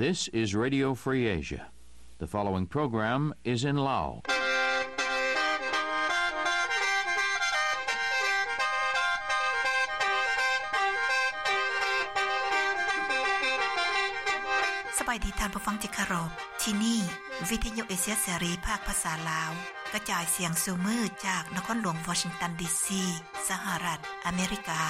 This is Radio Free Asia. The following program is in Lao. ສະບາຍດີທ່ານຜູ້ຟັງທີ່ເຄົາລົບ. ທີ່ນີ້ ວິທະຍຸເອເຊຍເສລີ ພາກພາສາລາວ ກະຈາຍສຽງສູ່ມື້ຈາກນະຄອນຫຼວງວໍຊິງຕັນ ດີຊີ ສະຫະລັດອາເມລິກາ.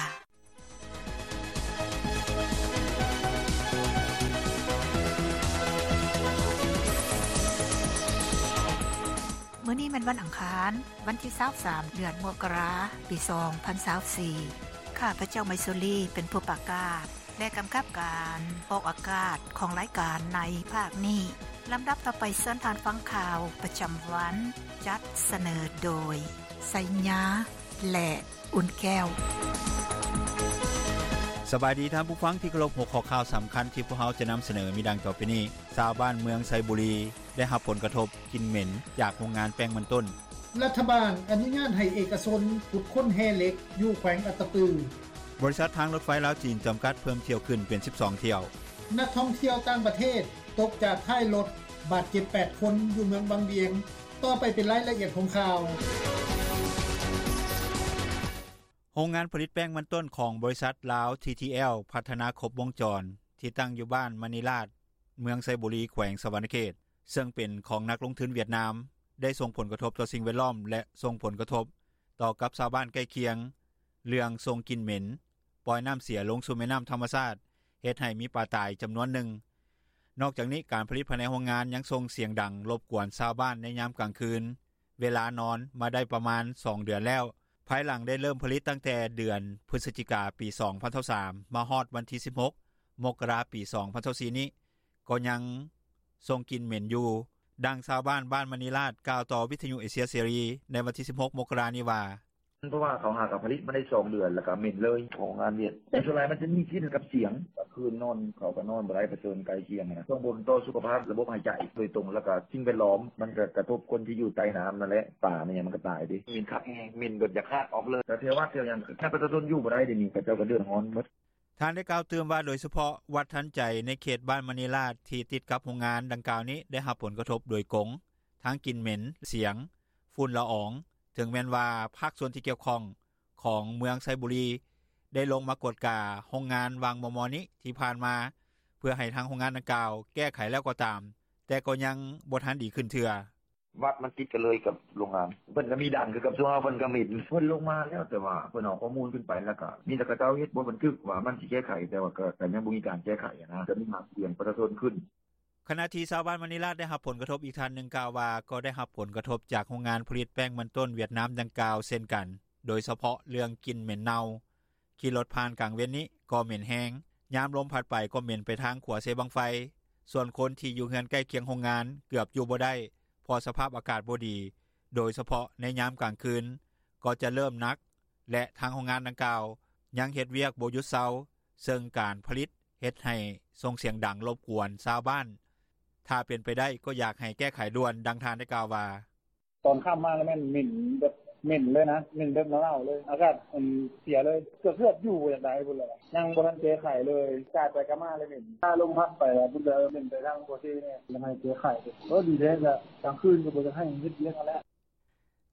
ມື້ນີ້ແມ່ນວັນອັງຄານ, ວັນທີຊາວສາມ ເດືອນມົກກະລາ ປີສອງພັນຊາວສີ່. ຂ້າພະເຈົ້າ ໄມຊູລີ ເປັນຜູ້ປະກາດ ແລະ ກຳກັບການອອກອາກາດຂອງລາຍການໃນພາກນີ້. ລຳດັບຕໍ່ໄປ ເຊີນທ່ານຟັງຂ່າວປະຈຳວັນ ຈັດສະເໜີໂດຍ ໄຊຍາ ແລະ ອຸ່ນແກ້ວ. ສະບາຍດີທ່ານຜູ້ຟັງທີ່ເຄົາລົບ, ຫົວຂໍ້ຂ່າວສຳຄັນທີ່ພວກເຮົາຈະນຳສະເໜີມີດັ່ງຕໍ່ໄປນີ້. ຊາວບ້ານເມືອງໄຊບູລີ ໄດ້ຮັບຜົນກະທົບກິ່ນເໝັນຈາກໂຮງງານແປ້ງມັນຕົ້ນ. ລັດຖະບານອະນຸຍາດໃຫ້ເອກະຊົນຂຸດຄົ້ນແຮ່ເຫຼັກຢູ່ແຂວງອັດຕະປື. ບໍລິສັດທາງລົດໄຟລາວຈີນຈຳກັດເພີ່ມຖ້ຽວຂຶ້ນເປັນສິບສອງຖ້ຽວ. ນັກທ່ອງທ່ຽວຕ່າງປະເທດຕົກຈາກທ້າຍລົດ ບາດເຈັບແປດຄົນ ຢູ່ເມືອງວັງວຽງ. ຕໍ່ໄປເປັນລາຍລະອຽດຂອງຂ່າວ. ໂຮງງານຜະລິດແປ້ງມັນຕົ້ນຂອງບໍລິສັດລາວ ທີທີແອລ ພັດທະນາຄົບວົງຈອນ ທີ່ຕັ້ງຢູ່ບ້ານມະນີລາດ ເມືອງໄຊບູລີ ແຂວງສະຫວັນນະເຂດ ເຊິ່ງເປັນຂອງນັກລົງທຶນຫວຽດນາມ ໄດ້ສົ່ງຜົນກະທົບຕໍ່ສິ່ງແວດລ້ອມ ແລະ ສົ່ງຜົນກະທົບຕໍ່ກັບຊາວບ້ານໃກ້ຄຽງ ເລື່ອງສົ່ງກິ່ນເໝັນ, ປ່ອຍນ້ຳເສຍລົງສູ່ແມ່ນ້ຳທຳມະຊາດ, ເຮັດໃຫ້ມີປາຕາຍຈຳນວນໜຶ່ງ. ນອກຈາກນີ້, ການຜະລິດພາຍໃນໂຮງງານຍັງສົ່ງສຽງດັງລົບກວນຊາວບ້ານໃນຍາມກາງຄືນ ເວລານອນມາໄດ້ປະມານສອງເດືອນແລ້ວ, ພາຍຫຼັງໄດ້ເລີ່ມຜະລິດຕັ້ງແຕ່ເດືອນພຶສຈິກາ ປີສອງພັນຊາວສາມ ມາຮອດວັນທີສິບຫົກ ມົກກະລາ ປີສອງພັນຊາວສີ່ນີ້ ກໍຍັງສົ່ງກິ່ນເໝັນຢູ່. ດັ່ງຊາວບ້ານ ບ້ານມະນີລາດ ກ່າວຕໍ່ວິທະຍຸເອເຊຍເສລີໃນວັນທີສິບຫົກ ມົກກະລານີ້ວ່າ. ເພາະວ່າເຂົາຫາກະຜະລິດມາໄດ້ສອງເດືອນ ແລ້ວກະເໝັນເລີຍ ຂອງໂຮງງານຫວຽດ. ແຕ່ສ່ວນຫຼາຍມັນຈະມີກິ່ນກັບສຽງ, ກາງຄືນນອນເຂົາກະນອນບໍ່ໄດ້ ປະເຊີນໃກ້ຄຽງນະ, ສົ່ງຜົນຕໍ່ສຸຂະພາບລະບົບຫາຍໃຈໂດຍຕົງ ແລ້ວກະສິ່ງແວດລ້ອມ ມັນກະກະທົບຄົນທີ່ຢູ່ໃຕ້ນ້ຳນັ້ນແຫຼະ, ປາແມ່ນຫຍັງມັນກະຕາຍເດ້. ເໝັນຄັກແຮງ, ເໝັນແບບຢາກຮາກອອກເລີຍ, ແຖວວັດແຖວຫຍັງ ແທບປະຊາຊົນຢູ່ບໍ່ໄດ້ ດຽວນີ້ເຂົາເຈົ້າກະເດືອດຮ້ອນໝົດ. ທ່ານໄດ້ກ່າວຕື່ມວ່າ ໂດຍສະເພາະວັດທັນໃຈ ໃນເຂດບ້ານມະນີລາດ ທີ່ຕິດກັບໂຮງງານດັ່ງກ່າວນີ້ ໄດ້ຮັບຜົນກະທົບໂດຍກົງ ທັງກິ່ນເໝັນ, ສຽງ, ຝຸ່ນລະອອງ, ເຖິງແມ່ນວ່າພາກສ່ວນທີ່ກ່ຽວຂ້ອງຂອງເມືອງໄຊບູລີ ໄດ້ລົງມາກວດກາໂຮງງານຫວ່າງມໍ່ໆນີ້ທີ່ຜ່ານມາ ເພື່ອໃຫ້ທາງໂຮງງານດັ່ງກ່າວແກ້ໄຂແລ້ວກໍຕາມ, ແຕ່ກໍຍັງບໍ່ທັນດີຂຶ້ນເທື່ອ. ວັດມັນຕິດກັນເລີຍກັບໂຮງງານ, ເພິ່ນກະມີດ່ານຄືກັບຊຸມເຮົາ, ເພິ່ນກະມີ, ເພິ່ນລົງມາແລ້ວ, ແຕ່ວ່າເພິ່ນເອົາຂໍ້ມູນຂຶ້ນໄປ ແລ້ວກະມີແຕ່ເຂົາເຈົ້າເຮັດ ບໍ່ບັນທຶກວ່າມັນຊິແກ້ໄຂ, ແຕ່ວ່າກະ ກະຍັງບໍ່ມີການແກ້ໄຂຫັ້ນນະ, ກະມີຫາກເສຍງປະຊາຊົນຂຶ້ນ. ຂະນະທີ່ຊາວບ້ານມະນີລາດ ໄດ້ຮັບຜົນກະທົບອີກທ່ານໜຶ່ງກ່າວວ່າ ກໍໄດ້ຮັບຜົນກະທົບຈາກໂຮງງານຜະລິດແປ້ງມັນຕົ້ນຫວຽດນາມດັ່ງກ່າວເຊັ່ນກັນ, ໂດຍສະເພາະເລື່ອງກິ່ນເໝັນເນົ່າ. ຂີ່ລົດຜ່ານກາງເວັນນີ້ກໍເໝັນແຮງ, ຍາມລົມພັດໄປກໍເໝັນໄປທາງຂົວເຊບັ້ງໄຟ. ສ່ວນຄົນທີ່ຢູ່ເຮືອນໃກ້ຄຽງໂຮງງານເກືອບຢູ່ບໍ່ໄດ້ ເພາະສະພາບອາກາດບໍ່ດີ, ໂດຍສະເພາະໃນຍາມກາງຄືນກໍຈະເລີ່ມໜັກ ແລະ ທາງໂຮງງານດັ່ງກ່າວຍັງເຮັດວຽກບໍ່ຢຸດເຊົາ, ເຊິ່ງການຜະລິດເຮັດໃຫ້ສົ່ງສຽງດັງລົບກວນຊາວບ້ານ. ຖ້າເປັນໄປໄດ້ກໍຢາກໃຫ້ແກ້ໄຂດ່ວນ, ດັ່ງທ່ານໄດ້ກ່າວວ່າ. ຕອນຄ່ຳມາແລ້ວແມ່ນເໝັນແບບເໝັນເລີຍນະ, ເໝັນແບບເນົ່າໆເລີຍ, ອາກາດມັນເສຍເລີຍ, ເກືອບໆຢູ່ບໍ່ຢາກໄດ້ພຸ້ນແຫຼະ, ຍັງບໍ່ທັນແກ້ໄຂເລີຍ, ກາດໄປກາດມາເລີຍເໝັນ, ຖ້າລົມພັດໄປແລ້ວພຸ້ນເລີຍເໝັນໄປທາງຂົວເຊນີ້, ຢາກໃຫ້ແກ້ໄຂ. ໂອ້ ດີແທ້, ກາງຄືນກະບໍ່ຢາກໃຫ້ເຮັດວຽກຫັ້ນແຫຼະ.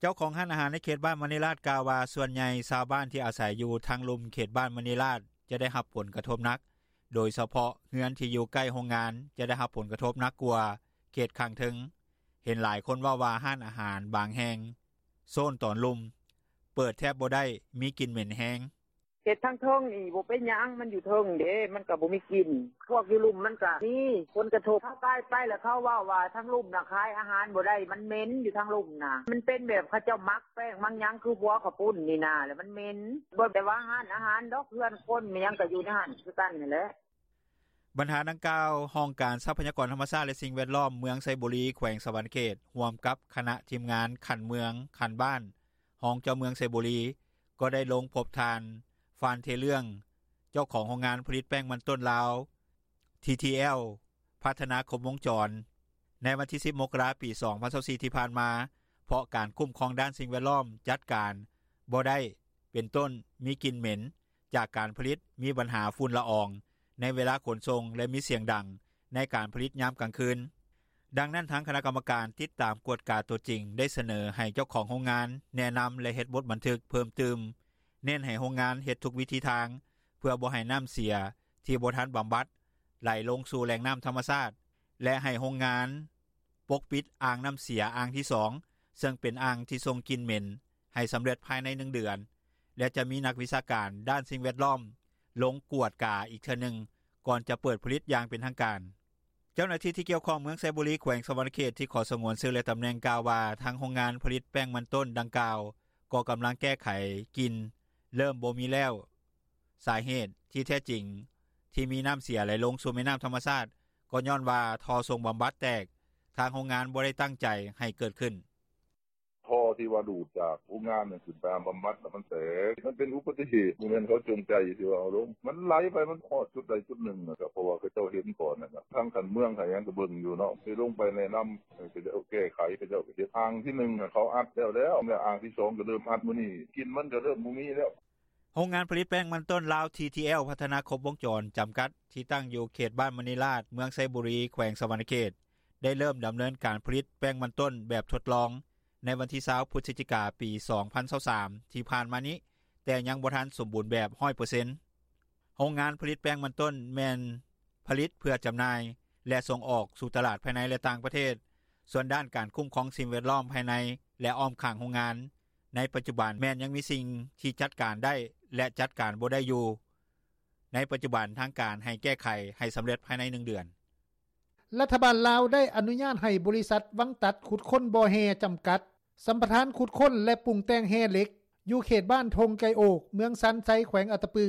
ເຈົ້າຂອງຮ້ານອາຫານໃນເຂດບ້ານມະນີລາດກ່າວວ່າ ສ່ວນໃຫຍ່ຊາວບ້ານທີ່ອາໄສຢູ່ທາງລຸ່ມເຂດບ້ານມະນີລາດຈະໄດ້ຮັບຜົນກະທົບໜັກ, ໂດຍສະເພາະເຮືອນທີ່ຢູ່ໃກ້ໂຮງງານຈະໄດ້ຮັບຜົນກະທົບໜັກກວ່າເຂດຂ້າງເທິງ. ເຫັນຫຼາຍຄົນເວົ້າວ່າຮ້ານອາຫານບາງແຫ່ງໂຊນຕອນລຸ່ມເປີດແທບບໍ່ໄດ້, ມີກິ່ນເໝັນແຮງ. ເຂດທາງເທິງນີ້ບໍ່ເປັນຫຍັງ, ມັນຢູ່ເທິງເດ້, ມັນກະບໍ່ມີກິ່ນ. ພວກຢູ່ລຸ່ມມັນກະມີຜົນກະທົບ. ເຮົາກາຍໄປແລ້ວເຂົາເວົ້າວ່າທາງລຸ່ມນະຂາຍອາຫານບໍ່ໄດ້, ມັນເໝັນຢູ່ທາງລຸ່ມນະ. ມັນເປັນແບບເຂົາເຈົ້າໝັກແປ້ງໝັກຫຍັງ ຄືຫົວເຂົ້າປຸ້ນນີ້ນາ, ແລ້ວມັນເໝັນ. ບໍ່ແຕ່ວ່າຮ້ານອາຫານດອກ, ເຮືອນຄົນແມ່ນຫຍັງກະຢູ່ໃນຫັ້ນຄືກັນຫັ້ນແຫຼະ. ບັນຫາດັ່ງກ່າວ, ຫ້ອງການຊັບພະຍາກອນທຳມະຊາດ ແລະ ສິ່ງແວດລ້ອມເມືອງໄຊບູລີ ແຂວງສະຫວັນນະເຂດ ຮ່ວມກັບຄະນະທີມງານຂັ້ນເມືອງ, ຂັ້ນບ້ານ, ຮອງເຈົ້າເມືອງໄຊບູລີ ກໍໄດ້ລົງພົບທ່ານ ຟານ ເທເລື່ອງ ເຈົ້າຂອງໂຮງງານຜະລິດແປ້ງມັນຕົ້ນລາວ ທີທີແອລ ພັດທະນາຄົບວົງຈອນ ໃນວັນທີສິບ ມົກກະລາ ປີສອງພັນຊາວສີ່ ທີ່ຜ່ານມາ, ເພາະການຄຸ້ມຄອງດ້ານສິ່ງແວດລ້ອມຈັດການບໍ່ໄດ້, ເປັນຕົ້ນ ມີກິ່ນເໝັນຈາກການຜະລິດ, ມີບັນຫາຝຸ່ນລະອອງໃນເວລາຂົນສົ່ງ ແລະ ມີສຽງດັງ ໃນການຜະລິດຍາມກາງຄືນ. ດັ່ງນັ້ນ ທາງຄະນະກຳມະການຕິດຕາມກວດກາໂຕຈິງ ໄດ້ສະເໜີໃຫ້ເຈົ້າຂອງໂຮງງານແນະນຳ ແລະ ເຮັດບົດບັນທຶກເພີ່ມຕື່ມ, ເນັ້ນໃຫ້ໂຮງງານເຮັດທຸກວິທີທາງ ເພື່ອບໍ່ໃຫ້ນ້ຳເສຍທີ່ບໍ່ທັນບຳບັດໄຫຼລົງສູ່ແຫຼ່ງນ້ຳທຳມະຊາດ ແລະ ໃຫ້ໂຮງງານປົກປິດອ່າງນ້ຳເສຍອ່າງທີສອງ ເຊິ່ງເປັນອ່າງທີ່ສົ່ງກິ່ນເໝັນ ໃຫ້ສຳເລັດພາຍໃນໜຶ່ງເດືອນ ແລະ ຈະມີນັກວິຊາການດ້ານສິ່ງແວດລ້ອມລົງກວດກາອີກເທື່ອໜຶ່ງ ກ່ອນຈະເປີດຜະລິດຢ່າງເປັນທາງການ. ເຈົ້າໜ້າທີ່ທີ່ກ່ຽວຂ້ອງເມືອງໄຊບູລີ ແຂວງສະຫວັນນະເຂດ ທີ່ຂໍສະຫງວນຊື່ ແລະ ຕຳແໜ່ງ ກ່າວວ່າ ທາງໂຮງງານຜະລິດແປ້ງມັນຕົ້ນດັ່ງກ່າວ ກໍກຳລັງແກ້ໄຂກິ່ນ ເລີ່ມບໍ່ມີແລ້ວ. ສາເຫດທີ່ແທ້ຈິງທີ່ມີນ້ຳເສຍໄຫຼລົງສູ່ແມ່ນ້ຳທຳມະຊາດ ກໍຍ້ອນວ່າທໍ່ສົ່ງບຳບັດແຕກ, ທາງໂຮງງານບໍ່ໄດ້ຕັ້ງໃຈໃຫ້ເກີດຂຶ້ນ. ທໍ່ທີ່ວ່າດູດຈາກໂຮງງານຂຶ້ນໄປຫາບຳບັດ ມັນແຕກ. ມັນເປັນອຸບັດຕິເຫດ, ບໍ່ແມ່ນເຂົາຈົງໃຈທີ່ວ່າເອົາລົງ. ມັນໄຫຼໄປ, ມັນຮອດຈຸດໃດຈຸດໜຶ່ງນະ, ກໍເພາະວ່າເຂົາເຈົ້າເຫັນກ່ອນນະ. ທາງຂັ້ນເມືອງ ທາງຫຍັງກໍເບິ່ງຢູ່ເນາະ, ໄດ້ລົງໄປແນະນຳ ເຂົາເຈົ້າແກ້ໄຂ, ເຂົາເຈົ້າກໍເຮັດອ່າງທີໜຶ່ງ ເຂົາອັດແລ້ວແລ້ວ, ແລະ ອ່າງທີສອງກໍເລີ່ມອັດມື້ນີ້, ກິ່ນມັນກໍເລີ່ມບໍ່ມີແລ້ວ. ໂຮງງານຜະລິດແປ້ງມັນຕົ້ນລາວ ທີທີແອລ ພັດທະນາຄົບວົງຈອນ ຈຳກັດ ທີ່ຕັ້ງຢູ່ເຂດບ້ານມະນີລາດ ເມືອງໄຊບູລີ ແຂວງສະຫວັນນະເຂດ ໄດ້ເລີ່ມດຳເນີນການຜະລິດແປ້ງມັນຕົ້ນແບບທົດລອງ ໃນວັນທີຊາວ ພຶສຈິກາ ປີສອງພັນຊາວສາມ ທີ່ຜ່ານມານີ້, ແຕ່ຍັງບໍ່ທັນສົມບູນແບບຮ້ອຍເປີເຊັນ. ໂຮງງານຜະລິດແປ້ງມັນຕົ້ນແມ່ນຜະລິດເພື່ອຈຳໜ່າຍ ແລະ ສົ່ງອອກສູ່ຕະຫຼາດພາຍໃນ ແລະ ຕ່າງປະເທດ. ສ່ວນດ້ານການຄຸ້ມຄອງສິ່ງແວດລ້ອມພາຍໃນ ແລະ ອ້ອມຂ້າງໂຮງງານ ໃນປັດຈຸບັນແມ່ນຍັງມີສິ່ງທີ່ຈັດການໄດ້ ແລະ ຈັດການບໍ່ໄດ້ຢູ່. ໃນປັດຈຸບັນທາງການໃຫ້ແກ້ໄຂໃຫ້ສຳເລັດພາຍໃນໜຶ່ງເດືອນ. ລັດຖະບານລາວໄດ້ອະນຸຍາດໃຫ້ບໍລິສັດວັງຕັດຂຸດຄົ້ນບໍ່ແຮ່ຈຳກັດ ສຳປະທານຂຸດຄົ້ນ ແລະ ປຸງແຕ່ງແຮ່ເຫຼັກ ຢູ່ເຂດບ້ານທົ່ງໄກ່ໂອກ ເມືອງຊານໄຊ ແຂວງອັດຕະປື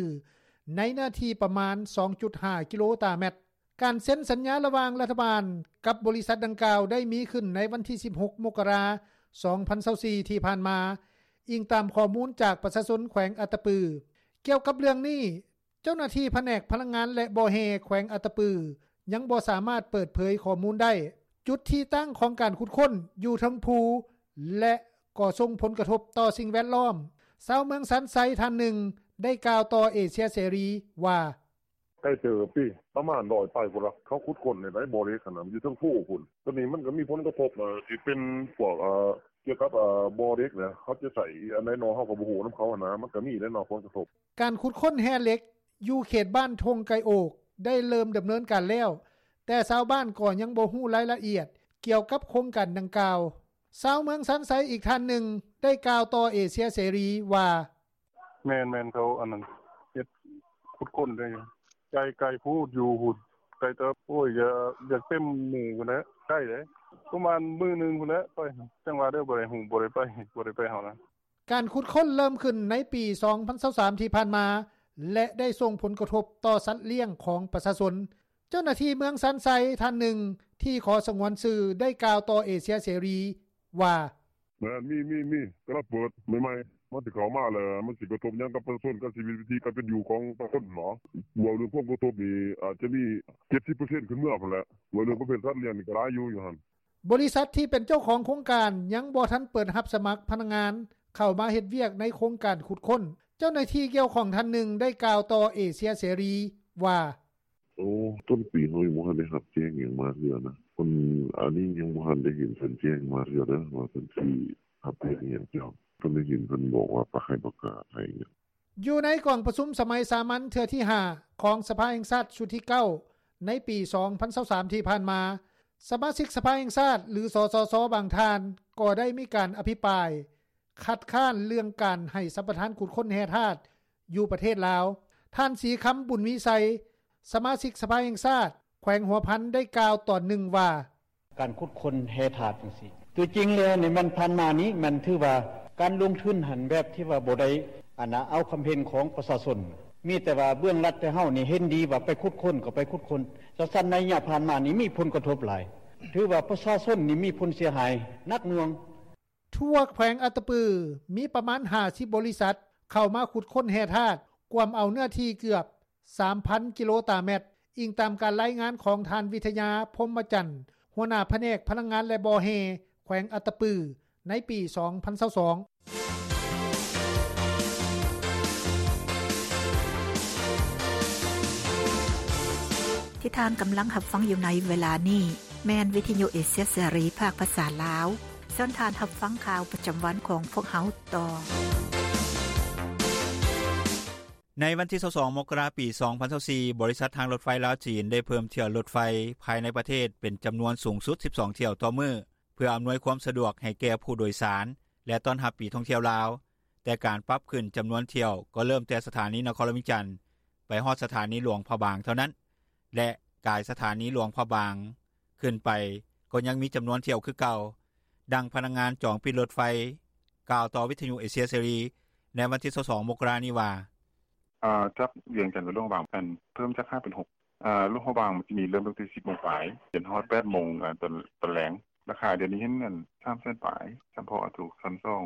ໃນເນື້ອທີ່ປະມານ ສອງຈຸດຫ້າ ກິໂລຕາແມັດ. ການເຊັນສັນຍາລະຫວ່າງລັດຖະບານກັບບໍລິສັດດັ່ງກ່າວ ໄດ້ມີຂຶ້ນໃນວັນທີ ສິບຫົກ ມົກກະລາ ສອງພັນຊາວສີ່ ທີ່ຜ່ານມາ, ອີງຕາມຂໍ້ມູນຈາກປະຊາຊົນແຂວງອັດຕະປື. ກ່ຽວກັບເລື່ອງນີ້, ເຈົ້າໜ້າທີ່ພະແນກພະລັງງານ ແລະ ບໍ່ແຮ່ ແຂວງອັດຕະປື ຍັງບໍ່ສາມາດເປີດເຜີຍຂໍ້ມູນໄດ້. ຈຸດທີ່ຕັ້ງຂອງການຂຸດຄົ້ນຢູ່ເທິງພູ ແລະ ກໍສົ່ງຜົນກະທົບຕໍ່ສິ່ງແວດລ້ອມ. ຊາວເມືອງຊານໄຊທ່ານໜຶ່ງ ໄດ້ກ່າວຕໍ່ເອເຊຍເສລີວ່າ: ໄກເຕີບຕິ, ປະມານຮ້ອຍປາຍພຸ້ນລະ, ເຂົາຂຸດຄົ້ນໃນໃດບໍ່ເຫຼັກຫັ້ນນະ, ມັນຢູ່ເທິງພູພຸ້ນ. ໂຕນີ້ມັນກໍມີຜົນກະທົບ ເອີ່ ທີ່ເປັນພວກ ເອີ່ ກ່ຽວກັບ ເອີ່ ບໍ່ເຫຼັກນະ, ເຂົາຈະໃຊ້ອັນໃດນໍ ເຮົາກໍບໍ່ຮູ້ນຳເຂົາຫັ້ນນະ, ມັນກໍມີແຫຼະເນາະ ຜົນກະທົບ. ການຂຸດຄົ້ນແຮ່ເຫຼັກຢູ່ເຂດບ້ານທົ່ງໄກ່ໂອກ ໄດ້ເລີ່ມດຳເນີນການແລ້ວ, ແຕ່ຊາວບ້ານກໍຍັງບໍ່ຮູ້ລາຍລະອຽດກ່ຽວກັບໂຄງການດັ່ງກ່າວ. ຊາວເມືອງຊານໄຊອີກທ່ານໜຶ່ງ ໄດ້ກ່າວຕໍ່ເອເຊຍເສລີວ່າ: ແມ່ນໆ ເຂົາອັນນັ້ນ ເຮັດຂຸດຄົ້ນໄດ້ຢູ່ ໄກ ໄກໂພດ ຢູ່ພຸ້ນ ໄກເຕີບ. ໂອ້ຍ ຢາກ ຢາກເຕັມມື້ພຸ້ນແຫຼະ, ໄກເດ້ ປະມານມື້ໜຶ່ງພຸ້ນແຫຼະໄປ. ຈັ່ງວ່າເດີ ບໍ່ໄດ້ຮູ້ ບໍ່ໄດ້ໄປ ບໍ່ໄດ້ໄປເຮົານະ. ການຂຸດຄົ້ນເລີ່ມຂຶ້ນໃນປີສອງພັນຊາວສາມ ທີ່ຜ່ານມາ ແລະ ໄດ້ສົ່ງຜົນກະທົບຕໍ່ສັດລ້ຽງຂອງປະຊາຊົນ. ເຈົ້າໜ້າທີ່ເມືອງຊານໄຊທ່ານໜຶ່ງທີ່ຂໍສະຫງວນຊື່ ໄດ້ກ່າວຕໍ່ເອເຊຍເສລີວ່າ: ແມ່ນ ມີ ມີ ມີ ກຳລັງເປີດໃໝ່ໆ ມັນຊິເຂົ້າມາແລ້ວ ມັນຊິກະທົບຫຍັງກັບປະຊາຊົນ ກັບຊີວິດວິຖີການເປັນຢູ່ຂອງປະຊາຊົນເນາະ. ເວົ້າເລື່ອງຜົນກະທົບນີ້ ອາດຈະມີ ເຈັດສິບເປີເຊັນ ຂຶ້ນເມືອພຸ້ນແຫຼະ. ເວົ້າເລື່ອງປະເພດສັດລ້ຽງນີ້ກໍຫຼາຍຢູ່ ຢູ່ຫັ້ນ. ບໍລິສັດທີ່ເປັນເຈົ້າຂອງໂຄງການຍັງບໍ່ທັນເປີດຮັບສະໝັກພະນັກງານເຂົ້າມາເຮັດວຽກໃນໂຄງການຂຸດຄົ້ນ. ເຈົ້າໜ້າທີ່ກ່ຽວຂ້ອງທ່ານໜຶ່ງໄດ້ກ່າວຕໍ່ເອເຊຍເສລີວ່າ: ໂອ້ ຕົ້ນປີເຮົາຍັງບໍ່ທັນໄດ້ຮັບແຈ້ງຫຍັງມາເທື່ອນະ. ເພິ່ນ ອັນນີ້ຍັງບໍ່ທັນໄດ້ເຫັນເພິ່ນແຈ້ງມາເທື່ອເດີ ວ່າເພິ່ນຊິຮັບແຈ້ງອີ່ຫຍັງ. ເຈົ້າ ເພິ່ນໄດ້ເຫັນເພິ່ນບອກວ່າປະ ໃຫ້ປະກາດໃຫ້ຫຍັງ. ຢູ່ໃນກອງປະຊຸມສະໄໝສາມັນເທື່ອທີຫ້າ ຂອງສະພາແຫ່ງຊາດຊຸດທີເກົ້າ ໃນປີສອງພັນຊາວສາມ ທີ່ຜ່ານມາ, ສະມາຊິກສະພາແຫ່ງຊາດ ຫຼື ສສຊ ບາງທ່ານ ກໍໄດ້ມີການອະພິປາຍ ຄັດຄ້ານເລື່ອງການໃຫ້ສຳປະທານຂຸດຄົ້ນແຮ່ທາດຢູ່ປະເທດລາວ. ທ່ານ ສີຄຳ ບຸນມີໄຊ ສະມາຊິກສະພາແຫ່ງຊາດ ແຂວງຫົວພັນ ໄດ້ກ່າວຕອນໜຶ່ງວ່າ: ການຂຸດຄົ້ນແຮ່ທາດຈັ່ງຊີ້ ຕົວຈິງແລ້ວນີ້ ມັນຜ່ານມານີ້ ມັນຖືວ່າການລົງທຶນຫັ້ນ ແບບທີ່ວ່າບໍ່ໄດ້ ອັນນ່າ ເອົາຄວາມເຫັນຂອງປະຊາຊົນ, ມີແຕ່ວ່າເບື້ອງລັດແຕ່ເຮົານີ້ເຫັນດີວ່າໄປຂຸດຄົ້ນກໍໄປຂຸດຄົ້ນ. ຈັ່ງຊັ້ນ ໄລຍະຜ່ານມານີ້ມີຜົນກະທົບຫຼາຍ, ຖືວ່າປະຊາຊົນນີ້ມີຜົນເສຍຫາຍໜັກໜ່ວງ. ທົ່ວແຂວງອັດຕະປື ມີປະມານຫ້າສິບບໍລິສັດເຂົ້າມາຂຸດຄົ້ນແຮ່ທາດ, ກວມເອົາເນື້ອທີ່ເກືອບສາມພັນກິໂລຕາແມັດ, ອີງຕາມການລາຍງານຂອງທ່ານ ວິທະຍາ ພົມມະຈັນ ຫົວໜ້າພະແນກພະລັງງານ ແລະ ບໍ່ແຮ່ ແຂວງອັດຕະປື ໃນປີສອງພັນຊາວສອງ. ທີ່ທ່ານກຳລັງຮັບຟັງຢູ່ໃນເວລານີ້ ແມ່ນວິທຍຸເອເຊຍເສລີ ພາກພາສາລາວ. ເຊີນທ່ານຮັບຟັງຂ່າວປະຈຳວັນຂອງພວກເຮົາຕໍ່. ໃນວັນທີຊາວສອງ ມົກກະລາ ປີສອງພັນຊາວສີ່ ບໍລິສັດທາງລົດໄຟລາວ-ຈີນ ໄດ້ເພີ່ມຖ້ຽວລົດໄຟພາຍໃນປະເທດເປັນຈຳນວນສູງສຸດສິບສອງຖ້ຽວຕໍ່ມື້ ເພື່ອອຳນວຍຄວາມສະດວກໃຫ້ແກ່ຜູ້ໂດຍສານ ແລະ ຕ້ອນຮັບປີທ່ອງທ່ຽວລາວ, ແຕ່ການປັບຂຶ້ນຈຳນວນຖ້ຽວກໍເລີ່ມແຕ່ສະຖານີນະຄອນຫຼວງວຽງຈັນ ໄປຮອດສະຖານີຫຼວງພະບາງເທົ່ານັ້ນ ແລະ ກາຍສະຖານີຫຼວງພະບາງຂຶ້ນໄປ ກໍຍັງມີຈຳນວນຖ້ຽວຄືເກົ່າ. ດັ່ງພະນັກງານຈອງປີ້ລົດໄຟ ກ່າວຕໍ່ວິທຍຸເອເຊຍເສລີ ໃນວັນທີຊາວສອງ ມົກກະລານີ້ວ່າ: ອາ ຈາກວຽງຈັນໄປຫຼວງພະບາງ ອັນ ເພີ່ມຈາກຫ້າເປັນຫົກ ອາ ຫຼວງພະບາງມັນຈະມີເລີ່ມຕັ້ງແຕ່ສິບໂມງປາຍ ຈົນຮອດແປດໂມງ ອາ ຕອນ ຕອນແລງ. ລາຄາດຽວນີ້ເຫັນ ອັນ ສາມແສນປາຍ ສຳເພາະ ອາ ໂຕຊັ້ນສອງ.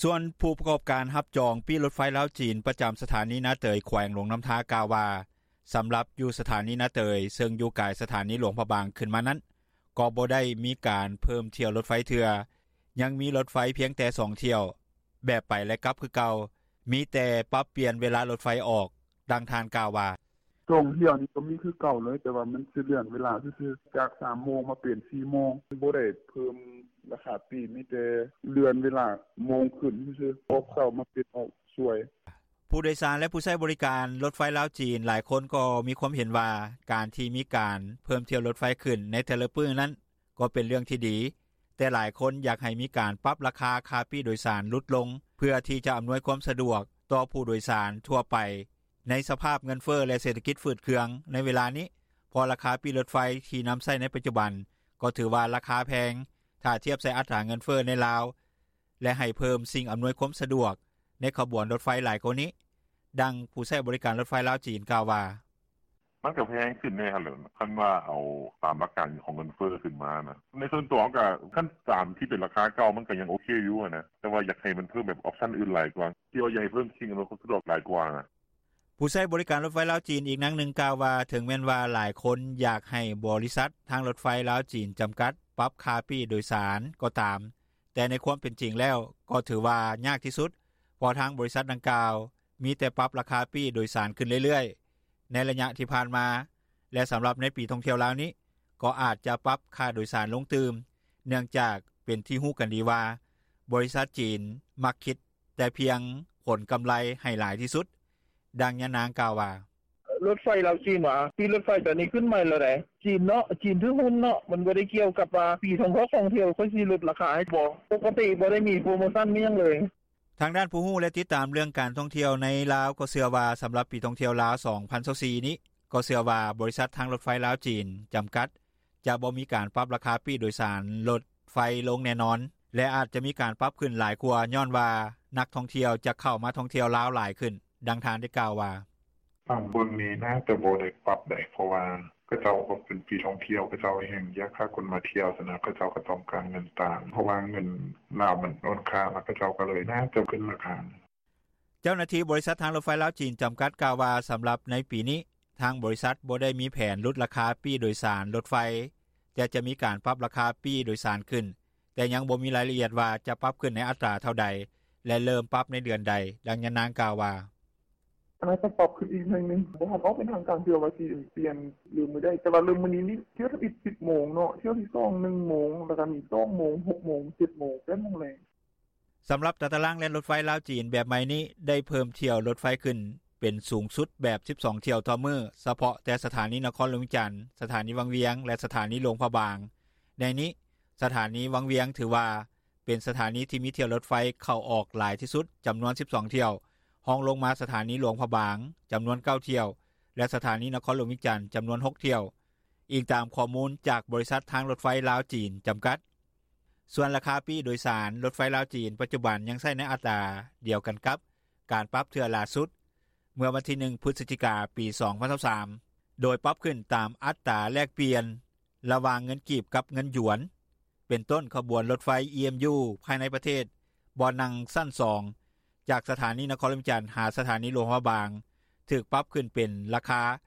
ສ່ວນຜູ້ປະກອບການຮັບຈອງປີ້ລົດໄຟລາວ-ຈີນ ປະຈຳສະຖານີນາເຕີຍ ແຂວງຫຼວງນ້ຳທາ ກ່າວວ່າ ສຳລັບຢູ່ສະຖານີນາເຕີຍ ເຊິ່ງຢູ່ກາຍສະຖານີຫຼວງພະບາງຂຶ້ນມານັ້ນ ກໍບໍ່ໄດ້ມີການເພີ່ມຖ້ຽວລົດໄຟເທື່ອ, ຍັງມີລົດໄຟພຽງແຕ່ສອງຖ້ຽວ ແບບໄປ ແລະ ກັບຄືເກົ່າ, ມີແຕ່ປັບປ່ຽນເວລາລົດໄຟອອກ. ດັ່ງທ່ານກ່າວວ່າ: ສອງຖ້ຽວນີ້ກໍມີຄືເກົ່າເລີຍ ແຕ່ວ່າມັນຊິເລື່ອນເວລາຊື່ໆ ຈາກສາມໂມງມາເປັນສີ່ໂມງ ບໍ່ໄດ້ເພີ່ມລາຄາປີ້ ມີແຕ່ເລື່ອນເວລາໂມງຂຶ້ນຊື່ໆ ອອກເຊົ້າມາເປັນອອກສວຍ. ຜູ້ໂດຍສານ ແລະ ຜູ້ໃຊ້ບໍລິການລົດໄຟລາວ-ຈີນ ຫຼາຍຄົນກໍມີຄວາມເຫັນວ່າ ການທີ່ມີການເພີ່ມຖ້ຽວລົດໄຟຂຶ້ນໃນແຕ່ລະມື້ນັ້ນ ກໍເປັນເລື່ອງທີ່ດີ, ແຕ່ຫຼາຍຄົນຢາກໃຫ້ມີການປັບລາຄາຄ່າປີ້ໂດຍສານຫຼຸດລົງ ເພື່ອທີ່ຈະອຳນວຍຄວາມສະດວກຕໍ່ຜູ້ໂດຍສານທົ່ວໄປ ໃນສະພາບເງິນເຟີ້ ແລະ ເສດຖະກິດຝືດເຄືອງໃນເວລານີ້, ເພາະລາຄາປີ້ລົດໄຟທີ່ນຳໃຊ້ໃນປັດຈຸບັນ ກໍຖືວ່າລາຄາແພງ ຖ້າທຽບໃສ່ອັດຕາເງິນເຟີ້ໃນລາວ ແລະ ໃຫ້ເພີ່ມສິ່ງອຳນວຍຄວາມສະດວກໃນຂະບວນລົດໄຟຫຼາຍກວ່ານີ້. ດັ່ງຜູ້ໃຊ້ບໍລິການລົດໄຟລາວ-ຈີນ ກ່າວວ່າ: ມັນກໍແພງຂຶ້ນແນ່ຫັ້ນແຫຼະ ຄັນວ່າເອົາຕາມຫຼັກການຂອງເງິນເຟີ້ຂຶ້ນມານະ. ໃນສ່ວນຕົວກໍ ຄັນຕາມທີ່ເປັນລາຄາເກົ່າມັນກໍຍັງໂອເຄຢູ່ຫັ້ນນະ ແຕ່ວ່າຢາກໃຫ້ມັນເພີ່ມແບບອອບຊັນອື່ນຫຼາຍກວ່າ ທີ່ວ່າຢາກໃຫ້ເພີ່ມສິ່ງອຳນວຍຄວາມສະດວກຫຼາຍກວ່ານະ. ຜູ້ໃຊ້ບໍລິການລົດໄຟລາວ-ຈີນ ອີກນາງໜຶ່ງກ່າວວ່າ ເຖິງແມ່ນວ່າຫຼາຍຄົນຢາກໃຫ້ບໍລິສັດທາງລົດໄຟລາວ-ຈີນ ຈຳກັດ ປັບຄ່າປີ້ໂດຍສານກໍຕາມ, ແຕ່ໃນຄວາມເປັນຈິງແລ້ວ ກໍຖືວ່າຍາກທີ່ສຸດ ເພາະທາງບໍລິສັດດັ່ງກ່າວ ມີແຕ່ປັບລາຄາປີ້ໂດຍສານຂຶ້ນເລື້ອຍໆ ໃນໄລຍະທີ່ຜ່ານມາ ແລະ ສຳລັບໃນປີທ່ອງທ່ຽວລາວນີ້ ກໍອາດຈະປັບຄ່າໂດຍສານລົງຕື່ມ ເນື່ອງຈາກເປັນທີ່ຮູ້ກັນດີວ່າ ບໍລິສັດຈີນມັກຄິດແຕ່ພຽງຜົນກຳໄລໃຫ້ຫຼາຍທີ່ສຸດ. ດັ່ງຍານາງກ່າວວ່າ: ລົດໄຟລາວ-ຈີນຫວາ ປີ້ລົດໄຟຕອນນີ້ຂຶ້ນໃໝ່ແລ້ວໃດ໋ ຈີນເນາະ ຈີນຖືຫຸ້ນເນາະ ມັນບໍ່ໄດ້ກ່ຽວກັບວ່າປີທ່ອງທ່ຽວ ທ່ອງທ່ຽວຂ້ອຍຊິຫຼຸດລາຄາໃຫ້ບໍ່ ປົກກະຕິບໍ່ໄດ້ມີໂປຣໂມຊັນມີຫຍັງເລີຍ. ທາງດ້ານຜູ້ຮູ້ ແລະ ຕິດຕາມເລື່ອງການທ່ອງທ່ຽວໃນລາວ ກໍເຊື່ອວ່າ ສຳລັບປີທ່ອງທ່ຽວລາວ ສອງພັນຊາວສີ່ນີ້ ກໍເຊື່ອວ່າບໍລິສັດທາງລົດໄຟລາວ-ຈີນ ຈຳກັດ ຈະບໍ່ມີການປັບລາຄາປີ້ໂດຍສານລົດໄຟລົງແນ່ນອນ ແລະ ອາດຈະມີການປັບຂຶ້ນຫຼາຍກວ່າ ຍ້ອນວ່ານັກທ່ອງທ່ຽວຈະເຂົ້າມາທ່ອງທ່ຽວລາວຫຼາຍຂຶ້ນ. ດັ່ງທ່ານໄດ້ກ່າວວ່າ: ຕາມເບິ່ງນີ້ໜ້າຈະບໍ່ໄດ້ປັບໃດ໋ ເພາະວ່າເຂົາເຈົ້າກໍເປັນປີທ່ອງທ່ຽວ ເຂົາເຈົ້າແຮ່ງຢາກຫາຄົນມາທ່ຽວຊັ້ນນະ ເຂົາເຈົ້າກໍຕ້ອງການເງິນຕາມ ເພາະວ່າເງິນລາວມັນອ່ອນຄ່າ ເຂົາເຈົ້າກໍເລີຍໜ້າຈະຂຶ້ນລາຄາ. ເຈົ້າໜ້າທີ່ບໍລິສັດທາງລົດໄຟລາວ-ຈີນ ຈຳກັດ ກ່າວວ່າ ສຳລັບໃນປີນີ້ ທາງບໍລິສັດບໍ່ໄດ້ມີແຜນຫຼຸດລາຄາປີ້ໂດຍສານລົດໄຟ ແຕ່ຈະມີການປັບລາຄາປີ້ໂດຍສານຂຶ້ນ, ແຕ່ຍັງບໍ່ມີລາຍລະອຽດວ່າຈະປັບຂຶ້ນໃນອັດຕາເທົ່າໃດ ແລະ ເລີ່ມປັບໃນເດືອນໃດ. ດັ່ງຍານາງກ່າວວ່າ: ອາດຈະປັບຂຶ້ນອີກໜ້ອຍໜຶ່ງ ບໍ່ທັນອອກເປັນທາງການເທື່ອວ່າຊິປ່ຽນຫຼືມື້ໃດ ແຕ່ວ່າເລີ່ມມື້ນີ້ນີ້ ຖ້ຽວທຳອິດສິບໂມງເນາະ ຖ້ຽວທີສອງໜຶ່ງໂມງ ແລ້ວກໍມີສອງໂມງ ຫົກໂມງ ເຈັດໂມງ ແປດໂມງແລງ. ສຳລັບຕາຕະລາງແລ່ນລົດໄຟລາວ-ຈີນແບບໃໝ່ນີ້ ໄດ້ເພີ່ມຖ້ຽວລົດໄຟຂຶ້ນເປັນສູງສຸດແບບສິບສອງຖ້ຽວຕໍ່ມື້ ສະເພາະແຕ່ສະຖານີນະຄອນຫຼວງວຽງຈັນ, ສະຖານີວັງວຽງ ແລະ ສະຖານີຫຼວງພະບາງ. ໃນນີ້ ສະຖານີວັງວຽງຖືວ່າເປັນສະຖານີທີ່ມີຖ້ຽວລົດໄຟເຂົ້າອອກຫຼາຍທີ່ສຸດ ຈຳນວນສິບສອງຖ້ຽວ, ຮອງລົງມາສະຖານີຫຼວງພະບາງ ຈຳນວນເກົ້າຖ້ຽວ ແລະ ສະຖານີນະຄອນຫຼວງວຽງຈັນ ຈຳນວນຫົກຖ້ຽວ, ອີງຕາມຂໍ້ມູນຈາກບໍລິສັດທາງລົດໄຟລາວ-ຈີນ ຈຳກັດ. ສ່ວນລາຄາປີ້ໂດຍສານລົດໄຟລາວ-ຈີນ ປັດຈຸບັນຍັງໃຊ້ໃນອັດຕາດຽວກັນກັບການປັບເທື່ອຫຼ້າສຸດ ເມື່ອວັນທີໜຶ່ງ ພຶສຈິກາ ປີສອງພັນຊາວສາມ ໂດຍປັບຂຶ້ນຕາມອັດຕາແລກປ່ຽນລະຫວ່າງເງິນກີບກັບເງິນຢວນ. ເປັນຕົ້ນ ຂະບວນລົດໄຟ ອີເອັມຢູ ພາຍໃນປະເທດ ບ່ອນນັ່ງຊັ້ນສອງ ຈາກສະຖານີນະຄອນຫຼວງວຽງຈັນ ຫາສະຖານີຫຼວງພະບາງ ຖືກປັບຂຶ້ນເປັນລາຄາ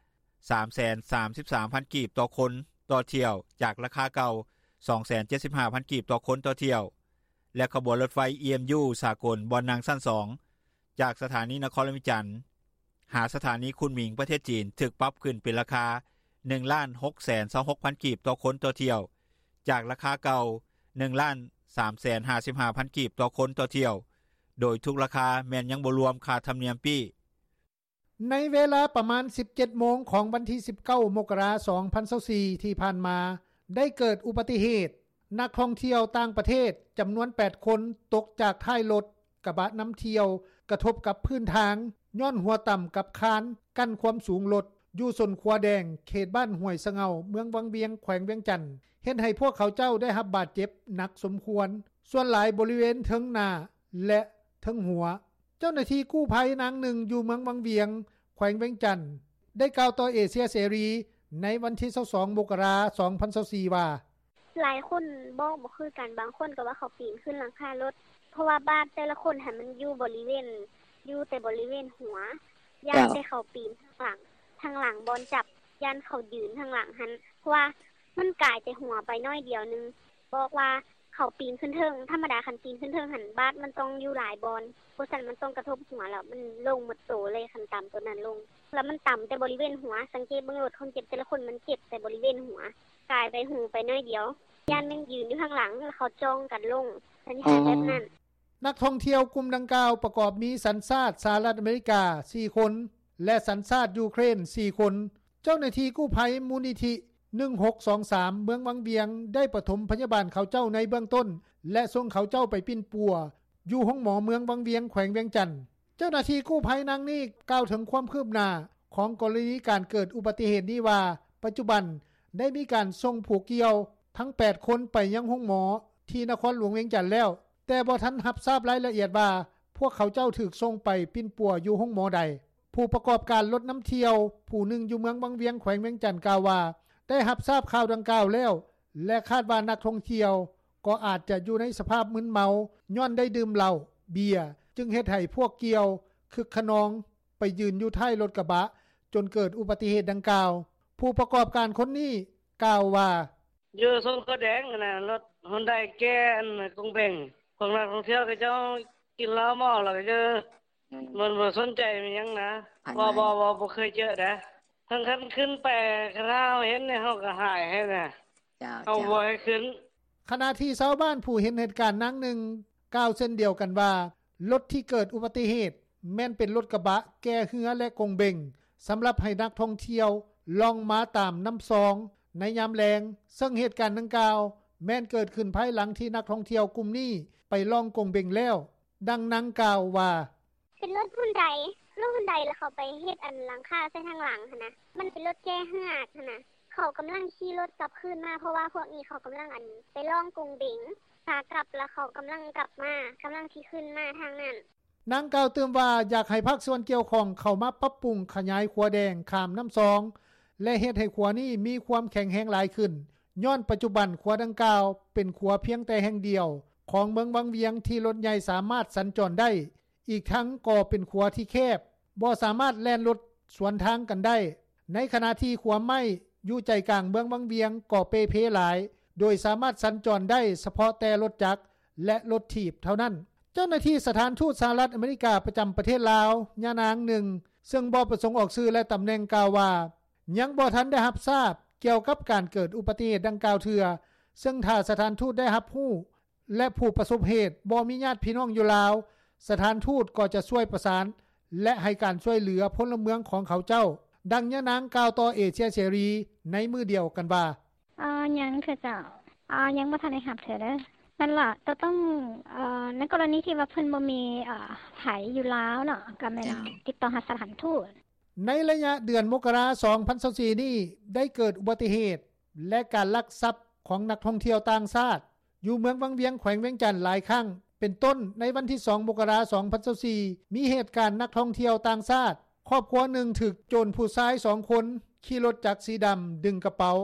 ສາມແສນສາມສິບສາມພັນກີບຕໍ່ຄົນຕໍ່ຖ້ຽວ ຈາກລາຄາເກົ່າ ສອງແສນເຈັດສິບຫ້າພັນກີບຕໍ່ຄົນຕໍ່ຖ້ຽວ ແລະ ຂະບວນລົດໄຟ ອີເອັມຢູ ສາກົນ ບ່ອນນັ່ງຊັ້ນສອງ ຈາກສະຖານີນະຄອນຫຼວງວຽງຈັນ ຫາສະຖານີຄຸນໝິງ ປະເທດຈີນ ຖືກປັບຂຶ້ນເປັນລາຄາ ໜຶ່ງລ້ານຫົກແສນຊາວຫົກພັນກີບຕໍ່ຄົນຕໍ່ຖ້ຽວ ຈາກລາຄາເກົ່າ ໜຶ່ງລ້ານສາມແສນຫ້າສິບຫ້າພັນກີບຕໍ່ຄົນຕໍ່ຖ້ຽວ ໂດຍທຸກລາຄາແມ່ນຍັງບໍ່ລວມຄ່າທຳນຽມປີ້. ໃນເວລາປະມານສິບເຈັດໂມງຂອງວັນທີສິບເກົ້າ ມົກກະລາ ສອງພັນຊາວສີ່ ທີ່ຜ່ານມາ ໄດ້ເກີດອຸບັດຕິເຫດ ນັກທ່ອງທ່ຽວຕ່າງປະເທດຈຳນວນແປດຄົນ ຕົກຈາກທ້າຍລົດກະບະນຳທ່ຽວ ກະທົບກັບພື້ນທາງ ຍ້ອນຫົວຕຳກັບຄານກັ້ນຄວາມສູງລົດ ຢູ່ຊົນຂົວແດງ ເຂດບ້ານຫ້ວຍສະເຫງົາ ເມືອງວັງວຽງ ແຂວງວຽງຈັນ ເຮັດໃຫ້ພວກເຂົາເຈົ້າໄດ້ຮັບບາດເຈັບໜັກສົມຄວນ, ສ່ວນຫຼາຍບໍລິເວນເທິງໜ້າ ແລະ ເທິງຫົວ. ເຈົ້າໜ້າທີ່ກູ້ໄພນາງໜຶ່ງຢູ່ເມືອງວັງວຽງ ແຂວງວຽງຈັນ ໄດ້ກ່າວຕໍ່ເອເຊຍເສລີໃນວັນທີຊາວສອງ ມົກກະລາ ສອງພັນຊາວສີ່ ວ່າ: ຫຼາຍຄົນບອກບໍ່ຄືກັນ, ບາງຄົນກໍວ່າເຂົາປີນຂຶ້ນຫຼັງຄາລົດ ເພາະວ່າບາດແຕ່ລະຄົນຫັ້ນມັນຢູ່ບໍລິເວນ ຢູ່ແຕ່ບໍລິເວນຫົວ, ຢ້ານແຕ່ເຂົາປີນທາງຫຼັງ, ທາງຫຼັງບ່ອນຈັບ, ຢ້ານເຂົາຢືນທາງຫຼັງຫັ້ນ, ເພາະວ່າມັນກາຍແຕ່ຫົວໄປໜ້ອຍດຽວໜຶ່ງ. ບອກວ່າເຂົາປີນຂຶ້ນເທິງ, ທຳມະດາຄັນປີນຂຶ້ນເທິງຫັ້ນ ບາດມັນຕ້ອງຢູ່ຫຼາຍບ່ອນ, ບໍ່ຊັ້ນມັນຕ້ອງກະທົບຫົວ ແລ້ວມັນລົງໝົດໂຕເລີຍ, ຄັນຕຳໂຕນັ້ນລົງ. ແລ້ວມັນຕຳແຕ່ບໍລິເວນຫົວ, ສັງເກດເບິ່ງໂລດ, ຄົນເຈັບແຕ່ລະຄົນມັນເຈັບແຕ່ບໍລິເວນຫົວ, ກາຍໄປຫູໄປໜ້ອຍດຽວ, ຢ້ານແມ່ນຢືນຢູ່ທາງຫຼັງ ແລ້ວເຂົາຈ່ອງກັນລົງ, ສັນນິຖານແບບນັ້ນ. ນັກທ່ອງທ່ຽວກຸ່ມດັ່ງກ່າວປະກອບມີສັນຊາດສະຫະລັດອາເມລິກາສີ່ຄົນ ແລະ ສັນຊາດຢູເຄຣນສີ່ຄົນ. ເຈົ້າໜ້າທີ່ກູ້ໄພມູນນິທິໜຶ່ງຫົກສອງສາມ ເມືອງວັງວຽງ ໄດ້ປະຖົມພະຍາບານເຂົາເຈົ້າໃນເບື້ອງຕົ້ນ ແລະ ສົ່ງເຂົາເຈົ້າໄປປິ່ນປົວຢູ່ໂຮງໝໍເມືອງວັງວຽງ ແຂວງວຽງຈັນ. ເຈົ້າໜ້າທີ່ກູ້ໄພນາງນີ້ກ່າວເຖິງຄວາມຄືບໜ້າຂອງກໍລະນີການເກີດອຸບັດຕິເຫດນີ້ວ່າ ປັດຈຸບັນໄດ້ມີການສົ່ງຜູ້ກ່ຽວທັງແປດຄົນໄປຍັງໂຮງໝໍທີ່ນະຄອນຫຼວງວຽງຈັນແລ້ວ, ແຕ່ບໍ່ທັນຮັບຊາບລາຍລະອຽດວ່າ ພວກເຂົາເຈົ້າຖືກສົ່ງໄປປິ່ນປົວຢູ່ໂຮງໝໍໃດ. ຜູ້ປະກອບການລົດນຳທ່ຽວຜູ້ໜຶ່ງຢູ່ເມືອງວັງວຽງ ແຂວງວຽງຈັນ ກ່າວວ່າ ໄດ້ຮັບຊາບຂ່າວດັ່ງກ່າວແລ້ວ ແລະ ຄາດວ່ານັກທ່ອງທ່ຽວກໍອາດຈະຢູ່ໃນສະພາບມຶນເມົາ ຍ້ອນໄດ້ດື່ມເຫຼົ້າ, ເບຍ, ຈຶ່ງເຮັດໃຫ້ພວກກ່ຽວຄຶກຂະນອງໄປຢືນຢູ່ທ້າຍລົດກະບະ ຈົນເກີດອຸບັດຕິເຫດດັ່ງກ່າວ. ຜູ້ປະກອບການຄົນນີ້ກ່າວວ່າ: ຢູ່ຊົນຂົວແດງຫັ້ນນະ, ລົດຮຸນໄດແກ່ອັນກົງເບັງ, ພວກນັກທ່ອງທ່ຽວເຂົາເຈົ້າກິນເຫຼົ້າເມົາແລ້ວກໍຢູ່ ມັນບໍ່ສົນໃຈມີຫຍັງນະ. ບໍ່ ບໍ່ ບໍ່ ບໍ່ເຄີຍເຈີເດ້. ຄັນ ຄັນຂຶ້ນໄປ ຄັນເຮົາເຫັນນີ້ ເຮົາກໍຫາຍໃຫ້ນະ. ເຈົ້າ ເຮົາບໍ່ໃຫ້ຂຶ້ນ. ຂະນະທີ່ຊາວບ້ານຜູ້ເຫັນເຫດການນາງໜຶ່ງກ່າວເຊັ່ນດຽວກັນວ່າ ລົດທີ່ເກີດອຸບັດຕິເຫດແມ່ນເປັນລົດກະບະແກ່ເຮືອ ແລະ ກົງເບັງ ສຳລັບໃຫ້ນັກທ່ອງທ່ຽວລ່ອງມາຕາມນ້ຳຊອງໃນຍາມແລງ, ເຊິ່ງເຫດການດັ່ງກ່າວແມ່ນເກີດຂຶ້ນພາຍຫຼັງທີ່ນັກທ່ອງທ່ຽວກຸ່ມນີ້ໄປລ່ອງກົງເບັງແລ້ວ. ດັ່ງນາງກ່າວວ່າ: ເປັນລົດຮຸນໄດ, ລົດຮຸນໄດ ແລ້ວເຂົາໄປເຮັດອັນຫຼັງຄາໃສ່ທາງຫຼັງຫັ້ນນະ. ມັນເປັນລົດແກ່ເຮືອຫັ້ນນະ. ເຂົາກຳລັງຂີ່ລົດກັບຄືນມາ ເພາະວ່າພວກນີ້ເຂົາກຳລັງອັນໄປລ່ອງກົງເບັງ ຂາກັບ ແລ້ວເຂົາກຳລັງກັບມາ, ກຳລັງຊິຂຶ້ນມາທາງນັ້ນ. ນາງກ່າວຕື່ມວ່າ ຢາກໃຫ້ພາກສ່ວນກ່ຽວຂ້ອງເຂົ້າມາປັບປຸງຂະຫຍາຍຂົວແດງຂ້າມນ້ຳຊອງ ແລະ ເຮັດໃຫ້ຂົວນີ້ມີຄວາມແຂງແຮງຫຼາຍຂຶ້ນ, ຍ້ອນປັດຈຸບັນຂົວດັ່ງກ່າວເປັນຂົວພຽງແຕ່ແຫ່ງດຽວຂອງເມືອງວັງວຽງທີ່ລົດໃຫຍ່ສາມາດສັນຈອນໄດ້, ອີກທັງກໍເປັນຂົວທີ່ແຄບ, ບໍ່ສາມາດແລ່ນລົດສວນທາງກັນໄດ້, ໃນຂະນະທີ່ຂົວໄມ້ຢູ່ໃຈກາງເມືອງວັງວຽງກໍເປ່ເພຫຼາຍ, ໂດຍສາມາດສັນຈອນໄດ້ສະເພາະແຕ່ລົດຈັກ ແລະ ລົດຖີບເທົ່ານັ້ນ. ເຈົ້າໜ້າທີ່ສະຖານທູດສະຫະລັດອາເມລິກາປະຈຳປະເທດລາວ ຍານາງໜຶ່ງ ເຊິ່ງບໍ່ປະສົງອອກຊື່ ແລະ ຕຳແໜ່ງ ກ່າວວ່າ ຍັງບໍ່ທັນໄດ້ຮັບຊາບກ່ຽວກັບການເກີດອຸບັດຕິເຫດດັ່ງກ່າວເທື່ອ, ເຊິ່ງຖ້າສະຖານທູດໄດ້ຮັບຮູ້ ແລະ ຜູ້ປະສົບເຫດບໍ່ມີຍາດພີ່ນ້ອງຢູ່ລາວ, ສະຖານທູດກໍຈະຊ່ວຍປະສານ ແລະ ໃຫ້ການຊ່ວຍເຫຼືອພົນລະເມືອງຂອງເຂົາເຈົ້າ. ດັ່ງຍານາງກ່າວຕໍ່ເອເຊຍເສລີໃນມື້ດຽວກັນວ່າ: ເອີ ຍັງເທື່ອເຈົ້າ, ເອີ ຍັງບໍ່ທັນໄດ້ຮັບເທື່ອເດີ. ນັ້ນລະ ກໍຕ້ອງ ເອີ ໃນກໍລະນີທີ່ວ່າເພິ່ນບໍ່ມີ ເອີ ໃຜຢູ່ລາວເນາະ ກໍແມ່ນ ເຈົ້າ ຕິດຕໍ່ຫາສະຖານທູດ. ໃນໄລຍະເດືອນມົກກະລາ ສອງພັນຊາວສີ່ນີ້ ໄດ້ເກີດອຸບັດຕິເຫດ ແລະ ການລັກຊັບຂອງນັກທ່ອງທ່ຽວຕ່າງຊາດ ຢູ່ເມືອງວັງວຽງ ແຂວງວຽງຈັນຫຼາຍຄັ້ງ ເປັນຕົ້ນໃນວັນທີສອງ ມົກກະລາ ສອງພັນຊາວສີ່ ມີເຫດການນັກທ່ອງທ່ຽວຕ່າງຊາດ ຄອບຄົວໜຶ່ງຖືກໂຈນຜູ້ຊາຍສອງຄົນຂີ່ລົດຈັກສີດຳດຶງກະເປົາ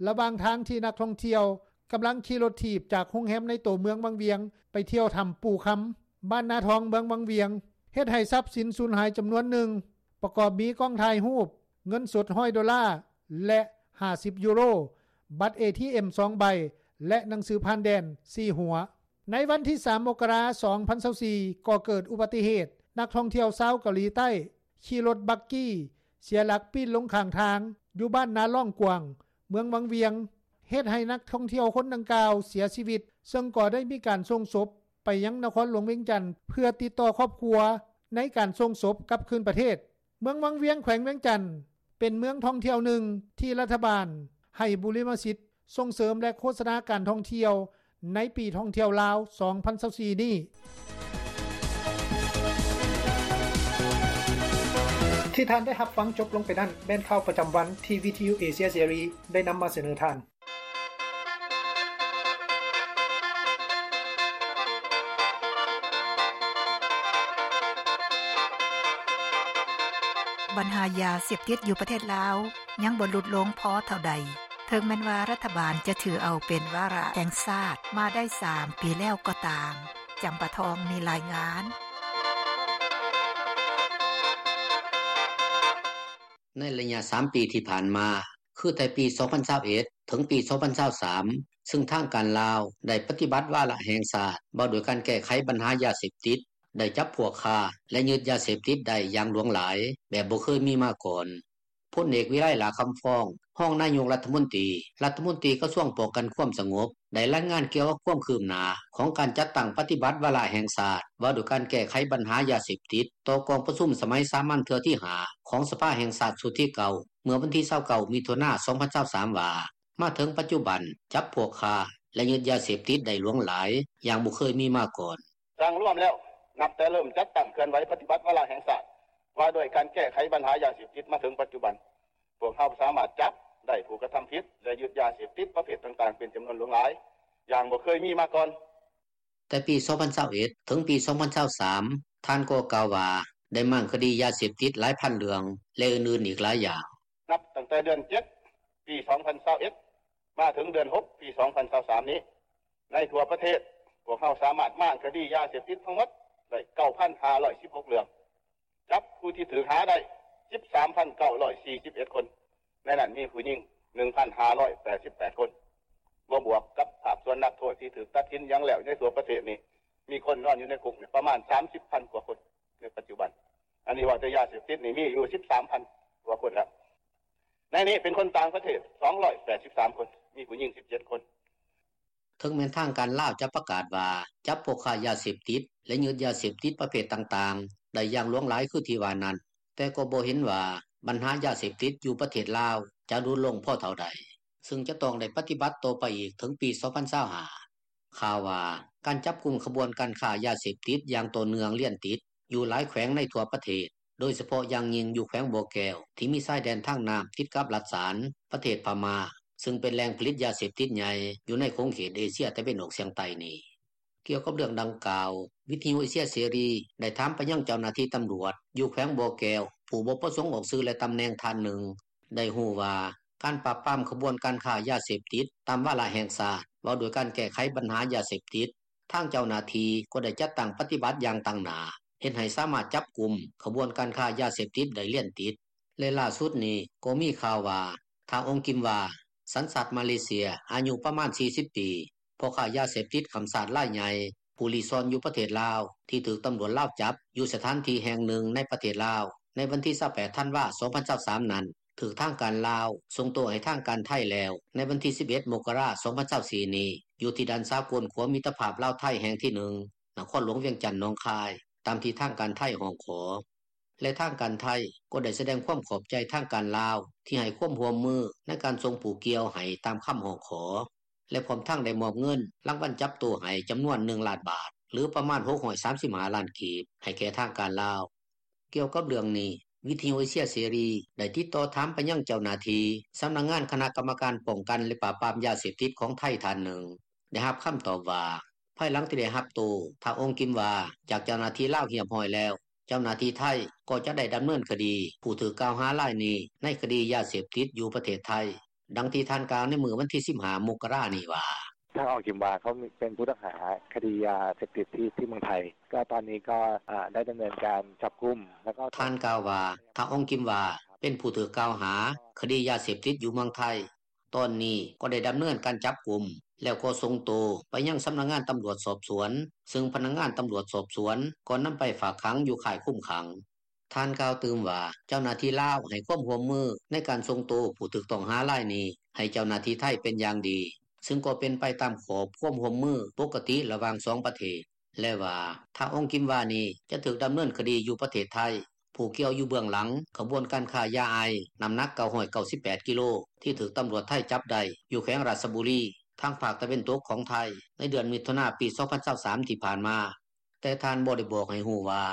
ລະຫວ່າງທາງທີ່ນັກທ່ອງທ່ຽວກຳລັງຂີ່ລົດຖີບຈາກໂຮງແຮມໃນໂຕເມືອງວັງວຽງ ໄປທ່ຽວຖ້ຳປູ່ຄຳ ບ້ານນາທອງ ເມືອງວັງວຽງ ເຮັດໃຫ້ຊັບສິນສູນຫາຍຈຳນວນໜຶ່ງ ປະກອບມີກ້ອງຖ່າຍຮູບ, ເງິນສົດຮ້ອຍໂດລາ ແລະ ຫ້າສິບຢູໂຣ, ບັດເອທີເອັມສອງໃບ ແລະ ໜັງສືຜ່ານແດນສີ່ຫົວ. ໃນວັນທີສາມ ມົກກະລາ ສອງພັນຊາວສີ່ ກໍເກີດອຸບັດຕິເຫດ ນັກທ່ອງທ່ຽວຊາວເກົາຫຼີໃຕ້ຂີ່ລົດບັກກີ້ ເສຍຫຼັກປີ້ນລົງຂ້າງທາງ ຢູ່ບ້ານນາລ້ອງກວ້າງ ເມືອງວັງວຽງ ເຮັດໃຫ້ນັກທ່ອງທ່ຽວຄົນດັ່ງກ່າວເສຍຊີວິດ ເຊິ່ງກໍໄດ້ມີການສົ່ງສົບໄປຍັງນະຄອນຫຼວງວຽງຈັນ ເພື່ອຕິດຕໍ່ຄອບຄົວໃນການສົ່ງສົບກັບຄືນປະເທດ. ເມືອງວັງວຽງ ແຂວງວຽງຈັນ ເປັນເມືອງທ່ອງທ່ຽວໜຶ່ງທີ່ລັດຖະບານໃຫ້ບຸລິມະສິດສົ່ງເສີມ ແລະ ໂຄສະນາການທ່ອງທ່ຽວ ໃນປີທ່ອງທ່ຽວລາວ ສອງພັນຊາວສີ່ນີ້. ທີ່ທ່ານໄດ້ຮັບຟັງຈົບລົງໄປນັ້ນ ແມ່ນຂ່າວປະຈຳວັນທີ່ວິທະຍຸເອເຊຍເສລີໄດ້ນຳມາສະເໜີທ່ານ. ບັນຫາຢາເສບຕິດຢູ່ປະເທດລາວ ຍັງບໍ່ຫຼຸດລົງພໍເທົ່າໃດ ເຖິງແມ່ນວ່າລັດຖະບານຈະຖືເອົາເປັນວາລະແຫ່ງຊາດມາໄດ້ສາມປີແລ້ວກໍຕາມ. ຈຳປາທອງມີລາຍງານ. ໃນໄລຍະສາມປີທີ່ຜ່ານມາ ຄືແຕ່ປີສອງພັນຊາວເອັດ ເຖິງປີສອງພັນຊາວສາມ ຊຶ່ງທາງການລາວໄດ້ປະຕິບັດວາລະແຫ່ງຊາດ ວ່າດ້ວຍການແກ້ໄຂບັນຫາຢາເສບຕິດ, ໄດ້ຈັບພວກຄ້າ ແລະ ຍຶດຢາເສບຕິດໄດ້ຢ່າງຫຼວງຫຼາຍ ແບບບໍ່ເຄີຍມີມາກ່ອນ. ພົນເອກ ວິໄລ ຫຼ້າຄຳຟອງ ຮອງນາຍົກລັດຖະມົນຕີ, ລັດຖະມົນຕີກະຊວງປ້ອງກັນຄວາມສະຫງົບ ໄດ້ລາຍງານກ່ຽວກັບຄວາມຄືບໜ້າຂອງການຈັດຕັ້ງປະຕິບັດວາລະແຫ່ງຊາດ ວ່າດ້ວຍການແກ້ໄຂບັນຫາຢາເສບຕິດ ຕໍ່ກອງປະຊຸມສະໄໝສາມັນເທື່ອທີຫ້າ ຂອງສະພາແຫ່ງຊາດຊຸດທີເກົ້າ ເມື່ອວັນທີຊາວເກົ້າ ມິຖຸນາ ສອງພັນຊາວສາມ ວ່າ ມາເຖິງປັດຈຸບັນ ຈັບພວກຄ້າ ແລະ ຍຶດຢາເສບຕິດໄດ້ຫຼວງຫຼາຍ ຢ່າງບໍ່ເຄີຍມີມາກ່ອນ. ສ້າງລວມແລ້ວ ນັບແຕ່ເລີ່ມຈັດຕັ້ງເຄື່ອນໄຫວປະຕິບັດວາລະແຫ່ງຊາດ ວ່າດ້ວຍການແກ້ໄຂບັນຫາຢາເສບຕິດມາເຖິງປັດຈຸບັນ ພວກເຮົາສາມາດຈັບໄດ້ຜູ້ກະທຳຜິດ ແລະ ຍຶດຢາເສບຕິດປະເພດຕ່າງໆ ເປັນຈຳນວນຫຼວງຫຼາຍ ຢ່າງບໍ່ເຄີຍມີມາກ່ອນ. ແຕ່ປີສອງພັນຊາວເອັດ ເຖິງປີສອງພັນຊາວສາມ ທ່ານກໍກ່າວວ່າ ໄດ້ມ້າງຄະດີຢາເສບຕິດຫຼາຍພັນເລື່ອງ ແລະ ອື່ນໆອີກຫຼາຍຢ່າງ. ນັບຕັ້ງແຕ່ເດືອນເຈັດ ປີສອງພັນຊາວເອັດ ມາເຖິງເດືອນຫົກ ປີສອງພັນຊາວສາມນີ້ ໃນທົ່ວປະເທດ ພວກເຮົາສາມາດມ້າງຄະດີຢາເສບຕິດທັງໝົດໄດ້ ເກົ້າພັນຫ້າຮ້ອຍສິບຫົກເລື່ອງ, ຈັບຜູ້ທີ່ຖືກຫາໄດ້ ສິບສາມພັນເກົ້າຮ້ອຍສີ່ສິບເອັດຄົນ, ໃນນັ້ນມີຜູ້ຍິງ ໜຶ່ງພັນຫ້າຮ້ອຍແປດສິບແປດຄົນ, ບໍ່ບວກກັບພາກສ່ວນນັກໂທດທີ່ຖືກຕັດສິນຫຍັງແລ້ວໃນທົ່ວປະເທດນີ້ ມີຄົນນອນຢູ່ໃນຄຸກນີ້ປະມານ ສາມສິບພັນກວ່າຄົນໃນປັດຈຸບັນ. ອັນນີ້ເວົ້າແຕ່ຢາເສບຕິດນີ້ມີຢູ່ ສິບສາມພັນກວ່າຄົນແລ້ວ. ໃນນີ້ເປັນຄົນຕ່າງປະເທດ ສອງຮ້ອຍແປດສິບສາມຄົນ, ມີຜູ້ຍິງ ສິບເຈັດຄົນ. ເຖິງແມ່ນທາງການລາວຈະປະກາດວ່າ ຈັບພວກຄ້າຢາເສບຕິດ ແລະ ຍຶດຢາເສບຕິດປະເພດຕ່າງໆ ໄດ້ຢ່າງຫຼວງຫຼາຍຄືທີ່ວ່ານັ້ນ, ແຕ່ກໍບໍ່ເຫັນວ່າບັນຫາຢາເສບຕິດຢູ່ປະເທດລາວຈະຫຼຸດລົງພໍເທົ່າໃດ, ຊຶ່ງຈະຕ້ອງໄດ້ປະຕິບັດຕໍ່ໄປອີກເຖິງປີສອງພັນຊາວຫ້າ. ຂ່າວວ່າ ການຈັບກຸມຂະບວນການຄ້າຢາເສບຕິດຢ່າງຕໍ່ເນື່ອງລຽນຕິດ ຢູ່ຫຼາຍແຂວງໃນທົ່ວປະເທດ, ໂດຍສະເພາະຢ່າງຍິ່ງຢູ່ແຂວງບໍ່ແກ້ວ ທີ່ມີຊາຍແດນທາງນ້ຳຕິດກັບລັດສານ ປະເທດພະມ້າ ຊຶ່ງເປັນແຫຼ່ງຜະລິດຢາເສບຕິດໃຫຍ່ຢູ່ໃນຂົງເຂດເອເຊຍຕາເວັນອອກສຽງໃຕ້ນີ້. ກ່ຽວກັບເລື່ອງດັ່ງກ່າວ, ວິທະຍຸເອເຊຍເສລີໄດ້ຖາມໄປຍັງເຈົ້າໜ້າທີ່ຕຳຫຼວດຢູ່ແຂວງບໍ່ແກ້ວ ຜູ້ບໍ່ປະສົງອອກຊື່ ແລະ ຕຳແໜ່ງທ່ານໜຶ່ງ ໄດ້ຮູ້ວ່າ ການປາບປາມຂະບວນການຄ້າຢາເສບຕິດຕາມວາລະແຫ່ງຊາດ ວ່າດ້ວຍການແກ້ໄຂບັນຫາຢາເສບຕິດ, ທາງເຈົ້າໜ້າທີ່ກໍໄດ້ຈັດຕັ້ງປະຕິບັດຢ່າງຕັ້ງໜ້າ ເຮັດໃຫ້ສາມາດຈັບກຸມຂະບວນການຄ້າຢາເສບຕິດໄດ້ລຽນຕິດ ແລະ ລ່າສຸດນີ້ກໍມີຂ່າວວ່າ ທ້າວ ອົງກິມວາ ສັນຊາດມາເລເຊຍ ອາຍຸປະມານ ສີ່ສິບປີ, ພໍ່ຄ້າຢາເສບຕິດຂ້າມຊາດລາຍໃຫຍ່ ຜູ້ລີ້ຊ່ອນຢູ່ປະເທດລາວ ທີ່ຖືກຕຳຫຼວດລາວຈັບຢູ່ສະຖານທີ່ແຫ່ງໜຶ່ງໃນປະເທດລາວ ໃນວັນທີຊາວແປດ ທັນວາ ສອງພັນຊາວສາມນັ້ນ ຖືກທາງການລາວສົ່ງໂຕໃຫ້ທາງການໄທແລ້ວ ໃນວັນທີສິບເອັດ ມົກກະລາ ສອງພັນຊາວສີ່ນີ້ ຢູ່ທີ່ດ່ານສາກົນຂົວມິດຕະພາບລາວ-ໄທແຫ່ງທີໜຶ່ງ ນະຄອນຫຼວງວຽງຈັນ ໜອງຄາຍ ຕາມທີ່ທາງການໄທຮ້ອງຂໍ. ແລະ ທາງການໄທກໍໄດ້ສະແດງຄວາມຂອບໃຈທາງການລາວ ທີ່ໃຫ້ຄວາມຮ່ວມມືໃນການສົ່ງຜູ້ກ່ຽວໃຫ້ຕາມຄຳຮ້ອງຂໍ ແລະ ພ້ອມທັງໄດ້ມອບເງິນລາງວັນຈັບໂຕໃຫ້ຈຳນວນ ໜຶ່ງລ້ານບາດ ຫຼື ປະມານ ຫົກຮ້ອຍສາມສິບຫ້າລ້ານກີບ ໃຫ້ແກ່ທາງການລາວ. ກ່ຽວກັບເລື່ອງນີ້, ວິທະຍຸເອເຊຍເສລີໄດ້ຕິດຕໍ່ຖາມໄປຍັງເຈົ້າໜ້າທີ່ສຳນັກງານຄະນະກຳມະການປ້ອງກັນ ແລະ ປາບປາມຢາເສບຕິດຂອງໄທທ່ານໜຶ່ງ ໄດ້ຮັບຄຳຕອບວ່າ ພາຍຫຼັງທີ່ໄດ້ຮັບໂຕ ທ້າວ ອົງກິມວາ ຈາກເຈົ້າໜ້າທີ່ລາວຮຽບຮ້ອຍແລ້ວ, ເຈົ້າໜ້າທີ່ໄທກໍຈະໄດ້ດຳເນີນຄະດີຜູ້ຖືກກ່າວຫາລາຍນີ້ໃນຄະດີຢາເສບຕິດຢູ່ປະເທດໄທ. ດັ່ງທີ່ທ່ານກ່າວໃນມື້ວັນທີສິບຫ້າ ມົກກະລານີ້ວ່າ: ທ່ານ ອົງກິມວາ ເຂົາເປັນຜູ້ຕ້ອງຫາຄະດີຢາເສບຕິດທີ່ ທີ່ເມືອງໄທ ກໍຕອນນີ້ກໍ ເອີ່ ໄດ້ດຳເນີນການຈັບກຸມ ແລ້ວກໍ ທ່ານກ່າວວ່າ ທ້າວ ອົງກິມວາ ເປັນຜູ້ຖືກກ່າວຫາຄະດີຢາເສບຕິດຢູ່ເມືອງໄທ. ຕອນນີ້ກໍໄດ້ດຳເນີນການຈັບກຸມ ແລ້ວກໍສົ່ງໂຕໄປຍັງສຳນັກງານຕຳຫຼວດສອບສວນ, ຊຶ່ງພະນັກງານຕຳຫຼວດສອບສວນກໍນຳໄປຝາກຂັງຢູ່ຄ້າຍຄຸມຂັງ. ທ່ານກ່າວຕື່ມວ່າ ເຈົ້າໜ້າທີ່ລາວ ໃຫ້ຄວາມຮ່ວມມື ໃນການສົ່ງໂຕຜູ້ຖືກຕ້ອງຫາລາຍນີ້ ໃຫ້ເຈົ້າໜ້າທີ່ໄທ ເປັນຢ່າງດີ ຊຶ່ງກໍເປັນໄປຕາມຂອບຄວາມຮ່ວມມື ປົກກະຕິລະຫວ່າງສອງປະເທດ ແລະວ່າ ທ້າວ ອອງກິມວາ ນີ້ ຈະຖືກດຳເນີນຄະດີຢູ່ປະເທດໄທ. ຜູ້ກ່ຽວຢູ່ເບື້ອງຫຼັງ ຂະບວນການຄ້າຢາໄອສ໌ ນໍ້າໜັກ 998 ກິໂລ ທີ່ຖືກຕຳຫຼວດໄທຈັບໄດ້ ຢູ່ແຂວງຣາຊບຸຣີ ທາງພາກຕາເວັນຕົກຂອງໄທ ໃນເດືອນມິຖຸນາ ປີ 2023 ທີ່ຜ່ານມາ, ແຕ່ທ່ານບໍ່ໄດ້ບອກໃຫ້ຮູ້ວ່າ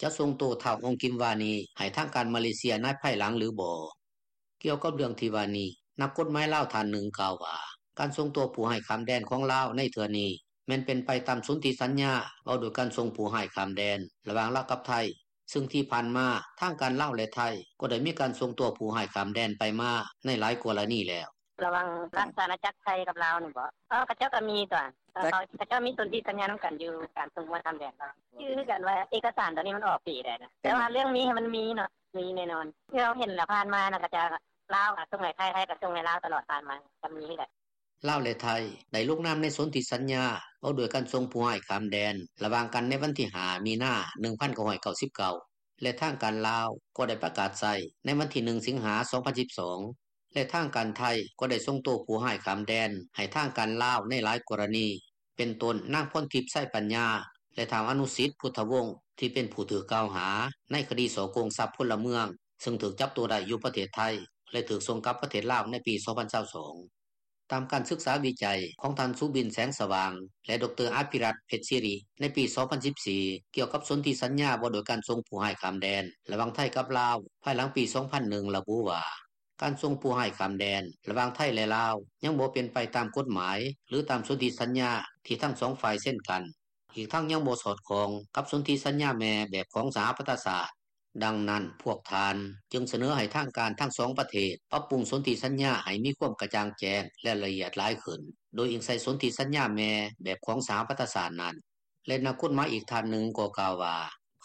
ຈະສົ່ງໂຕທ້າວ ອອງກິມວາ ນີ້ ໃຫ້ທາງການມາເລເຊຍ ໃນພາຍຫຼັງຫຼືບໍ່. ກ່ຽວກັບເລື່ອງທີ່ວ່ານີ້ ນັກກົດໝາຍລາວທ່ານໜຶ່ງກ່າວວ່າ ການສົ່ງໂຕຜູ້ຮ້າຍຂ້າມແດນຂອງລາວໃນເທື່ອນີ້ ແມ່ນເປັນໄປຕາມສົນທິສັນຍາ ວ່າດ້ວຍການສົ່ງຜູ້ຮ້າຍຂ້າມແດນ ລະຫວ່າງລາວກັບໄທ, ຊຶ່ງທີ່ຜ່ານມາ ທາງການລາວ ແລະໄທ ກໍໄດ້ມີການສົ່ງໂຕຜູ້ຮ້າຍຂ້າມແດນໄປມາ ໃນຫຼາຍກໍລະນີແລ້ວ. ລະຫວ່າງຣາຊອານາຈັກໄທກັບລາວນີ້ບໍ? ເອີ ເຂົາເຈົ້າກໍມີຕົວະ ເຂົາເຈົ້າມີສົນທິສັນຍານຳກັນຢູ່ ການສົ່ງຜູ້ຮ້າຍຂ້າມແດນ. ຄືກັນວ່າເອກະສານໂຕນີ້ມັນອອກປີໃດນະ ແຕ່ວ່າເລື່ອງມີມັນມີເນາະ ມີແນ່ນອນ. ທີ່ເຮົາເຫັນລະຜ່ານມານະ ເຂົາເຈົ້າ ລາວກໍສົ່ງໃຫ້ໄທ ໄທກໍສົ່ງໃຫ້ລາວຕະຫຼອດຜ່ານມາ ກໍມີຄືກັນ. ລາວ ແລະໄທ ໄດ້ລົງນາມໃນສົນທິສັນຍາ ວ່າດ້ວຍການສົ່ງຜູ້ຮ້າຍຂ້າມແດນ ລະຫວ່າງກັນໃນວັນທີ 5 ມິນາ 1999 ແລະທາງການລາວ ກໍໄດ້ປະກາດໃຊ້ໃນວັນທີ 1 ສິງຫາ 2012 ແລະທາງການໄທ ກໍໄດ້ສົ່ງໂຕຜູ້ຮ້າຍຂ້າມແດນ ໃຫ້ທາງການລາວ ໃນຫຼາຍກໍລະນີ ເປັນຕົ້ນ ນາງ ພອນທິບ ໄຊປັນຍາ ແລະ ທ້າວ ອະນຸສິດ ພຸດທະວົງ ທີ່ເປັນຜູ້ຖືກກ່າວຫາ ໃນຄະດີສໍ້ໂກງຊັບພົນລະເມືອງ ຊຶ່ງຖືກຈັບໂຕໄດ້ຢູ່ປະເທດໄທ ແລະຖືກສົ່ງກັບປະເທດລາວ ໃນປີ 2022. ຕາມການສຶກສາວິໄຈ ຂອງທ່ານ ສຸບິນ ແສງສະຫວ່າງ ແລະ ດຣ. ອະພິລັດ ເພັດສີຣິ ໃນປີ 2014 ກ່ຽວກັບສົນທິສັນຍາ ວ່າດ້ວຍການສົ່ງຜູ້ຮ້າຍຂ້າມແດນ ລະຫວ່າງໄທກັບລາວ ພາຍຫຼັງປີ 2001 ລະບຸວ່າ ການສົ່ງຜູ້ຮ້າຍຂ້າມແດນ ລະຫວ່າງໄທ ແລະລາວ ຍັງບໍ່ເປັນໄປຕາມກົດໝາຍ ຫຼືຕາມສົນທິສັນຍາ ທີ່ທັງສອງຝ່າຍເຊັນກັນ, ອີກທັງຍັງບໍ່ສອດຄ່ອງ ກັບສົນທິສັນຍາແມ່ແບບຂອງສະຫະປະຊາຊາດ. ດັ່ງນັ້ນ ພວກທ່ານ ຈຶ່ງສະເໜີໃຫ້ທາງການທັງສອງປະເທດ ປັບປຸງສົນທິສັນຍາ ໃຫ້ມີຄວາມກະຈ່າງແຈ້ງ ແລະລະອຽດຫຼາຍຂຶ້ນ ໂດຍອີງໃສ່ສົນທິສັນຍາແມ່ແບບຂອງສະຫະປະຊາຊາດນັ້ນ. ແລະນັກກົດໝາຍອີກທ່ານໜຶ່ງ ກໍກ່າວວ່າ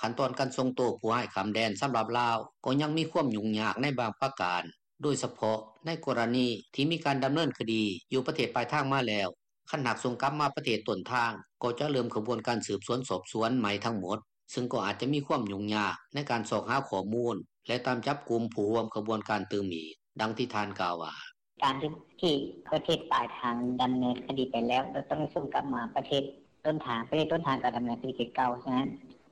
ຂັ້ນຕອນການສົ່ງໂຕຜູ້ຮ້າຍຂ້າມແດນ ສຳລັບລາວ ກໍຍັງມີຄວາມຫຍຸ້ງຍາກໃນບາງປະການ ໂດຍສະເພາະ ໃນກໍລະນີທີ່ມີການດຳເນີນຄະດີ ຢູ່ປະເທດປາຍທາງມາແລ້ວ, ຄັນຫາກສົ່ງກັບມາປະເທດຕົ້ນທາງ ກໍຈະເລີ່ມຂະບວນການສືບສວນສອບສວນໃໝ່ທັງໝົດ, ຊຶ່ງກໍອາດຈະມີຄວາມຫຍຸ້ງຍາກ ໃນການຊອກຫາຂໍ້ມູນ ແລະຕາມຈັບກຸມຜູ້ຮ່ວມຂະບວນການຕື່ມອີກ. ດັ່ງທີ່ທ່ານກ່າວວ່າ: ການທີ່ປະເທດປາຍທາງດຳເນີນຄະດີໄປແລ້ວ ແລ້ວຕ້ອງສົ່ງກັບມາປະເທດຕົ້ນທາງ, ປະເທດຕົ້ນທາງກໍດຳເນີນຄະດີຄືເກົ່າ. ສະນັ້ນ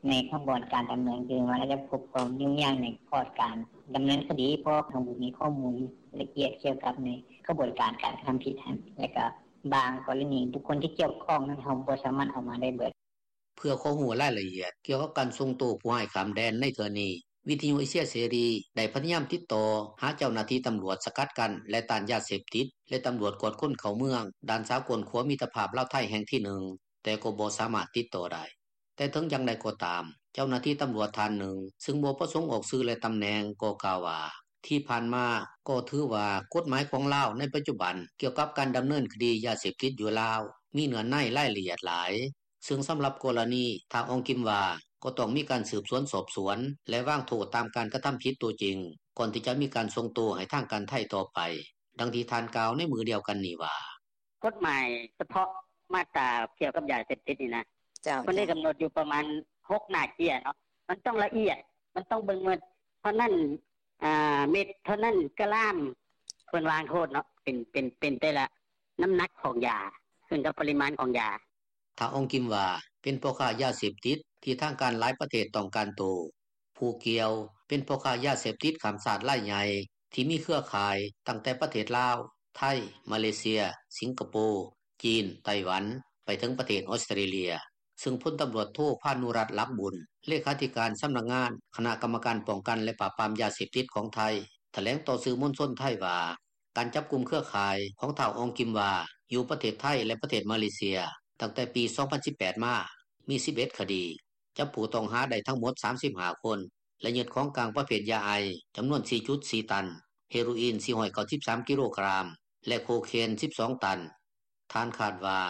ໃນຂະບວນການດຳເນີນຄະດີ ມັນອາດຈະພົບຄວາມຫຍຸ້ງຍາກໃນຂອບການດຳເນີນຄະດີ ເພາະເຮົາບໍ່ມີຂໍ້ມູນລະອຽດກ່ຽວກັບໃນຂະບວນການການກະທຳຜິດຫັ້ນ ແລະກະບາງກໍລະນີບຸກຄົນທີ່ກ່ຽວຂ້ອງນັ້ນ ເຮົາບໍ່ສາມາດເອົາມາໄດ້ເບິດ. ເພື່ອຂໍຮູ້ລາຍລະອຽດກ່ຽວກັບການສົ່ງໂຕຜູ້ຮ້າຍຂ້າມແດນໃນເທື່ອນີ້ ວິທະຍຸເອເຊຍເສລີ ໄດ້ພະຍາຍາມຕິດຕໍ່ຫາເຈົ້າໜ້າທີ່ຕຳຫຼວດສະກັດກັ້ນ ແລະຕ້ານຢາເສບຕິດ ແລະຕຳຫຼວດກວດຄົນເຂົ້າເມືອງ ດ່ານສາກົນຂົວມິດຕະພາບລາວ-ໄທແຫ່ງທີໜຶ່ງ ແຕ່ກໍບໍ່ສາມາດຕິດຕໍ່ໄດ້. ແຕ່ເຖິງຢ່າງໃດກໍຕາມ ເຈົ້າໜ້າທີ່ຕຳຫຼວດທ່ານໜຶ່ງ ຊຶ່ງບໍ່ປະສົງອອກຊື່ ແລະຕຳແໜ່ງ ກໍກ່າວວ່າ ທີ່ຜ່ານມາກໍຖືວ່າກົດໝາຍຂອງລາວໃນປັດຈຸບັນ ກ່ຽວກັບການດຳເນີນຄະດີຢາເສບຕິດຢູ່ລາວ ມີເນື້ອໃນລາຍລະອຽດຫຼາຍ, ຊຶ່ງສຳລັບກໍລະນີ ທ້າວ ອອງກິມວາ ກໍຕ້ອງມີການສືບສວນສອບສວນ ແລະວາງໂທດຕາມການກະທຳຜິດຕົວຈິງ ກ່ອນທີ່ຈະມີການສົ່ງໂຕໃຫ້ທາງການໄທຕໍ່ໄປ. ດັ່ງທີ່ທ່ານກ່າວໃນມື້ດຽວກັນນີ້ວ່າ: ກົດໝາຍສະເພາະມາດຕາກ່ຽວກັບຢາເສບຕິດນີ້ນະ ເພິ່ນໄດ້ກຳນົດຢູ່ປະມານ ຫົກໜ້າເຈ້ຍເນາະ ມັນຕ້ອງລະອຽດ ມັນຕ້ອງເບິ່ງວ່າເທົ່ານັ້ນເມັດ ເທົ່ານັ້ນກຣາມ ເພິ່ນວາງໂທດເນາະ ເປັນ ເປັນ ເປັນແຕ່ລະນ້ຳໜັກຂອງຢາ ຂຶ້ນກັບປະລິມານຂອງຢາ. ທ້າວ ອອງກິມວາ ເປັນພໍ່ຄ້າຢາເສບຕິດທີ່ທາງການຫຼາຍປະເທດຕ້ອງການໂຕ. ຜູ້ກ່ຽວ ເປັນພໍ່ຄ້າຢາເສບຕິດຂ້າມຊາດລາຍໃຫຍ່ ທີ່ມີເຄືອຂ່າຍຕັ້ງແຕ່ປະເທດລາວ, ໄທ, ມາເລເຊຍ, ສິງກະໂປ, ຈີນ, ໄຕ້ຫວັນ ໄປເຖິງປະເທດອອສເຕຣເລັຍ, ຊຶ່ງພົນຕຳຫຼວດໂທ ພານຸລັດ ຫຼັກບຸນ ເລຂາທິການສຳນັກງານຄະນະກຳມະການປ້ອງກັນ ແລະປາບປາມຢາເສບຕິດຂອງໄທ ຖະແຫຼງຕໍ່ສື່ມວນຊົນໄທວ່າ ການຈັບກຸມເຄືອຂ່າຍຂອງທ້າວ ອອງກິມວາ ຢູ່ປະເທດໄທ ແລະປະເທດມາເລເຊຍ ຕັ້ງແຕ່ປີ 2018 ມາ ມີ 11 ຄະດີ, ຈັບຜູ້ຕ້ອງຫາໄດ້ທັງໝົດ 35 ຄົນ ແລະຍຶດຂອງກາງປະເພດຢາໄອສ໌ ຈຳນວນ 4.4 ຕັນ, ເຮໂຣອີນ 493 ກິໂລກຣາມ ແລະໂຄເຄນ 12 ຕັນ. ທ່ານຄາດວ່າ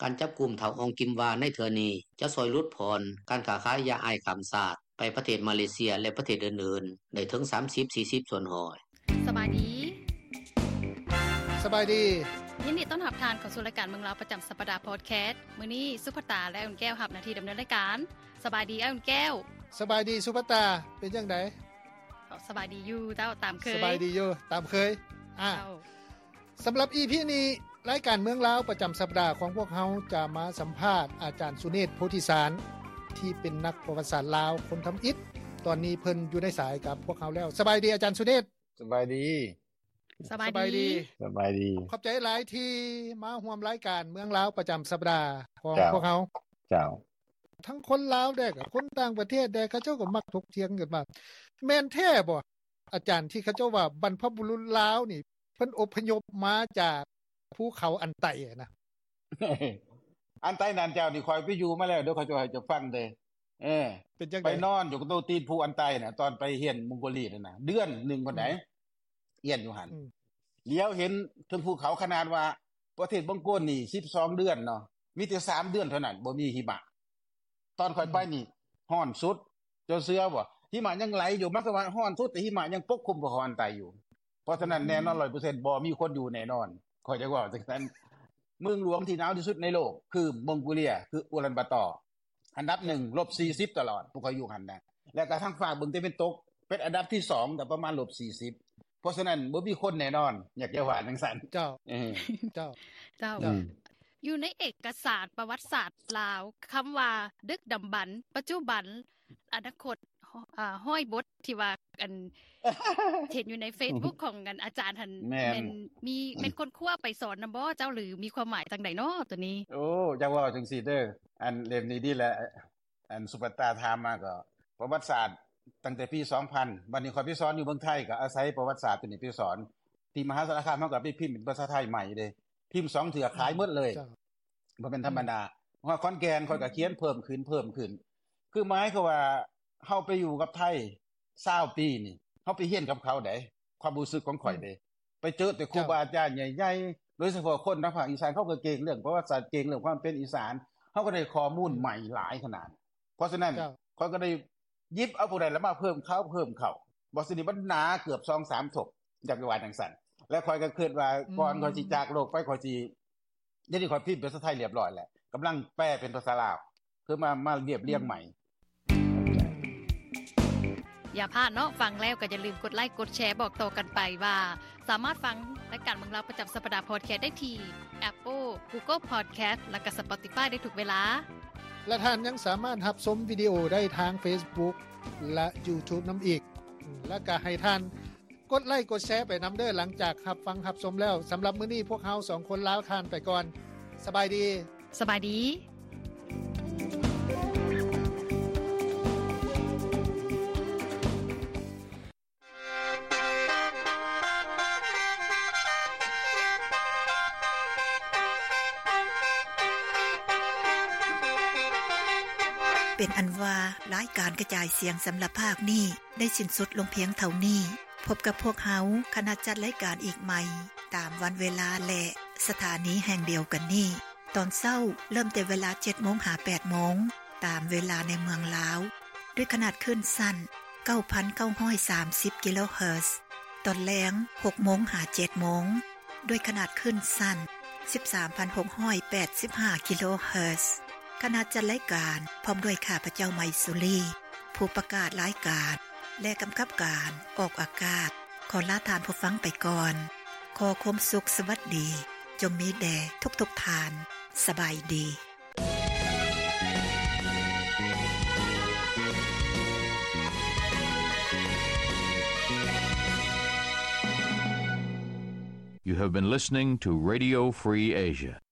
ການຈັບກຸມທ້າວ ອອງກິມວາ ໃນເທື່ອນີ້ ຈະຊ່ອຍຫຼຸດຜ່ອນການຄ້າຂາຍຢາໄອສ໌ຂ້າມຊາດ ໄປປະເທດມາເລເຊຍ ແລະປະເທດອື່ນໆ ໄດ້ເຖິງ 30-40 ສ່ວນຮ້ອຍ. ສະບາຍດີ. ສະບາຍດີ. ຍິນດີຕ້ອນຮັບທ່ານເຂົ້າສູ່ລາຍການເມືອງລາວປະຈຳສັບປະດາພອດແຄສ. ມື້ນີ້ສຸພັດຕາ ແລະ ອຸ່ນແກ້ວ ຮັບໜ້າທີ່ດຳເນີນລາຍການ. ສະບາຍດີ ອ້າຍອຸ່ນແກ້ວ. ສະບາຍດີ ສຸພັດຕາ. ເປັນຈັ່ງໃດ? ສະບາຍດີຢູ່ເຈົ້າ ຕາມເຄີຍ. ສະບາຍດີຢູ່ຕາມເຄີຍ. ອ່າ ເຈົ້າ ສຳລັບອີພີນີ້ ລາຍການເມືອງລາວປະຈຳສັບປະດາຂອງພວກເຮົາຈະມາສຳພາດອາຈານສຸເນດ ໂພທິສານ ທີ່ເປັນນັກປະຫວັດສາດລາວຄົນທຳອິດ. ຕອນນີ້ເພິ່ນຢູ່ໃນສາຍກັບພວກເຮົາແລ້ວ. ສະບາຍດີອາຈານສຸເນດ. ສະບາຍດີ. ສະບາຍດີ. ສະບາຍດີ. ສະບາຍດີ. ຂອບໃຈຫຼາຍທີ່ມາຮ່ວມລາຍການເມືອງລາວປະຈຳສັບປະດາຂອງ ເຈົ້າ ພວກເຮົາ. ເຈົ້າ. ທັງຄົນລາວແດ່ ກັບຄົນຕ່າງປະເທດແດ່ ເຂົາເຈົ້າກໍມັກຖົກຖຽງກັນວ່າ ແມ່ນແທ້ບໍ່ ອາຈານ ທີ່ເຂົາເຈົ້າວ່າບັນພະບຸລຸດລາວນີ້ ເພິ່ນອົບພະຍົບມາຈາກພູເຂົາອັນໄຕນະ? ອັນໄຕນັ້ນເຈົ້ານີ້ ຂ້ອຍໄປຢູ່ມາແລ້ວ ດຽວຂ້ອຍຈະເວົ້າໃຫ້ເຈົ້າຟັງເດີ້. ເອີ ເປັນຈັ່ງໃດ? ໄປນອນຢູ່ຕົວຕີນພູອັນໄຕນະ ຕອນໄປຮຽນມົງໂກເລຍນັ້ນນະ ເດືອນໜຶ່ງພຸ້ນໃດ໋. ອືມ. ຮຽນຢູ່ຫັ້ນ ອືມ ຫຼຽວເຫັນເທິງພູເຂົາ ຂະໜາດວ່າປະເທດມົງໂກນນີ້ສິບສອງເດືອນເນາະ ມີແຕ່ສາມເດືອນເທົ່ານັ້ນບໍ່ມີຫິມະ. ຕອນຂ້ອຍໄປນີ້ ອືມ ຮ້ອນສຸດ ເຈົ້າເຊື່ອບໍ່? ຫິມະຍັງໄຫຼຢູ່ ໝາຍຄວາມວ່າຮ້ອນສຸດ ແຕ່ຫິມະຍັງປົກຄຸມພູເຂົາອັນໄຕຢູ່. ເພາະສະນັ້ນ ອືມ ແນ່ນອນຮ້ອຍເປີເຊັນ ບໍ່ມີຄົນຢູ່ແນ່ນອນ ຂ້ອຍຈະເວົ້າຈັ່ງຊັ້ນ. ເມືອງຫຼວງທີ່ໜາວທີ່ສຸດໃນໂລກຄືມົງໂກເລຍ ຄືອູລັນບາຕໍ. ອັນດັບໜຶ່ງ ລົບສີ່ສິບຕະຫຼອດ ພວກຂ້ອຍຢູ່ຫັ້ນນະ ແລ້ວກໍທາງຟາກເບື້ອງຕາເວັນຕົກເປັນອັນດັບທີສອງ ກໍປະມານລົບສີ່ສິບ. ເພາະສະນັ້ນບໍ່ມີຄົນແນ່ນອນ ຢາກຈະວ່າຈັ່ງຊັ້ນ. ເຈົ້າ. ເອີ ເຈົ້າ. ເຈົ້າ. ເຈົ້າ. ອືມ. ຢູ່ໃນເອກະສານປະຫວັດສາດລາວ ຄຳວ່າດຶກດຳບັນ, ປັດຈຸບັນ, ອະນາຄົດ ເອີ ຮ້ອຍບົດທີ່ວ່າ ອັນ ເຫັນຢູ່ໃນເຟສບຸກຂອງ ອັນ ອາຈານຫັ້ນ ແມ່ນ ແມ່ນມີ ແມ່ນຄົ້ນຄວ້າໄປສອນນຳບໍ່ເຈົ້າ ຫຼື ມີຄວາມໝາຍຈັ່ງໃດເນາະໂຕນີ້? ໂອ້ ຢາກເວົ້າຈັ່ງຊີ້ເດີ້ ອັນເຫຼັ້ມນີ້ດີແຫຼະ ອັນສຸປັດຕາຖາມມາກໍປະຫວັດສາດຕັ້ງແຕ່ປີສອງພັນ ບັດນີ້ຂ້ອຍໄປສອນຢູ່ເມືອງໄທ ກໍອາໄສປະຫວັດສາດໂຕນີ້ໄປສອນ. ທີ່ມະຫາສາລະຄາມ ເຮົາກໍໄປພິມເປັນພາສາໄທໃໝ່ເດ້ ພິມສອງເທື່ອຂາຍໝົດເລີຍ. ເຈົ້າ. ບໍ່ແມ່ນທຳມະດາ. ອືມ. ຮອດຂອນແກ່ນ ຂ້ອຍກໍຂຽນເພີ່ມຂຶ້ນ ເພີ່ມຂຶ້ນ ຄືໝາຍຄວາມວ່າ ເຮົາໄປຢູ່ກັບໄທຊາວປີນີ້ ເຮົາໄປຮຽນກັບເຂົາໃດ໋ ຄວາມຮູ້ສຶກຂອງຂ້ອຍເດ້ ອືມ ໄປເຈີແຕ່ຄູ ເຈົ້າ ບາອາຈານໃຫຍ່ໆ ໂດຍສະເພາະຄົນທາງພາກອີສານ ເຂົາກໍເກັ່ງເລື່ອງປະຫວັດສາດ ເກັ່ງເລື່ອງຄວາມເປັນອີສານ ເຮົາກໍໄດ້ຂໍ້ມູນ ອືມ ໃໝ່ຫຼາຍຂະໜາດ. ເພາະສະນັ້ນ ເຈົ້າ ຂ້ອຍກໍໄດ້ ຢິບເອົາພວກນັ້ນລະມາເພີ່ມເຂົ້າ ເພີ່ມເຂົ້າ ບໍ່ສະນີ້ມັນໜາເກືອບສອງສາມທົບ ຢາກວ່າຈັ່ງຊັ້ນ. ແລະ ຂ້ອຍກໍຄິດວ່າ ອືມ ກ່ອນຂ້ອຍຊິຈາກໂລກໄປ ຂ້ອຍຊິ ດຽວນີ້ຂ້ອຍພິມເປັນພາສາໄທລຽບຮ້ອຍແລ້ວ ກຳລັງແປເປັນພາສາລາວ ຄືມາ ມາລຽບລຽງໃໝ່. ອືມ ຢ່າພາດເນາະ ຟັງແລ້ວກໍຢ່າລືມກົດໄລກົດແຊ ບອກຕໍ່ກັນໄປວ່າ ສາມາດຟັງລາຍການເມືອງລາວປະຈຳສັບປະດາພອດແຄສໄດ້ທີ່ Apple, Google Podcast ແລະກໍ Spotify ໄດ້ທຸກເວລາ. ແລະທ່ານຍັງສາມາດຮັບຊົມວິດີໂອໄດ້ທາງ Facebook ແລະ YouTube ນຳອີກ. ແລະກໍໃຫ້ທ່ານກົດໄລກົດແຊໄປນຳເດີ້ ຫຼັງຈາກຮັບຟັງຮັບຊົມແລ້ວ. ສຳລັບມື້ນີ້ພວກເຮົາສອງຄົນລາທ່ານໄປກ່ອນ. ສະບາຍດີ. ສະບາຍດີ. ເປັນອັນວ່າ ລາຍການກະຈາຍສຽງສຳລັບພາກນີ້ໄດ້ສິ້ນສຸດລົງພຽງເທົ່ານີ້. ພົບກັບພວກເຮົາ ຄະນະຈັດລາຍການອີກໃໝ່ ຕາມວັນເວລາ ແລະ ສະຖານີແຫ່ງດຽວກັນນີ້. ຕອນເຊົ້າເລີ່ມແຕ່ເວລາເຈັດໂມງຫາແປດໂມງ ຕາມເວລາໃນເມືອງລາວ ດ້ວຍຂະໜາດຄື້ນສັ້ນເກົ້າພັນເກົ້າຮ້ອຍສາມສິບກິໂລເຮີດ. ຕອນແລງຫົກໂມງຫາເຈັດໂມງ ດ້ວຍຂະໜາດຄື້ນສັ້ນສິບສາມພັນຫົກຮ້ອຍແປດສິບຫ້າກິໂລເຮີດ. ຄະນະຈັດລາຍການ ພ້ອມດ້ວຍຂ້າພະເຈົ້າ ໄມສຸລີ ຜູ້ປະກາດລາຍການ ແລະ ກຳກັບການອອກອາກາດ ຂໍລາທ່ານຜູ້ຟັງໄປກ່ອນ. ຂໍຄວາມສຸກສະຫວັດດີ ຈົ່ງມີແດ່ທຸກໆທ່ານ. ສະບາຍດີ. You have been listening to Radio Free Asia.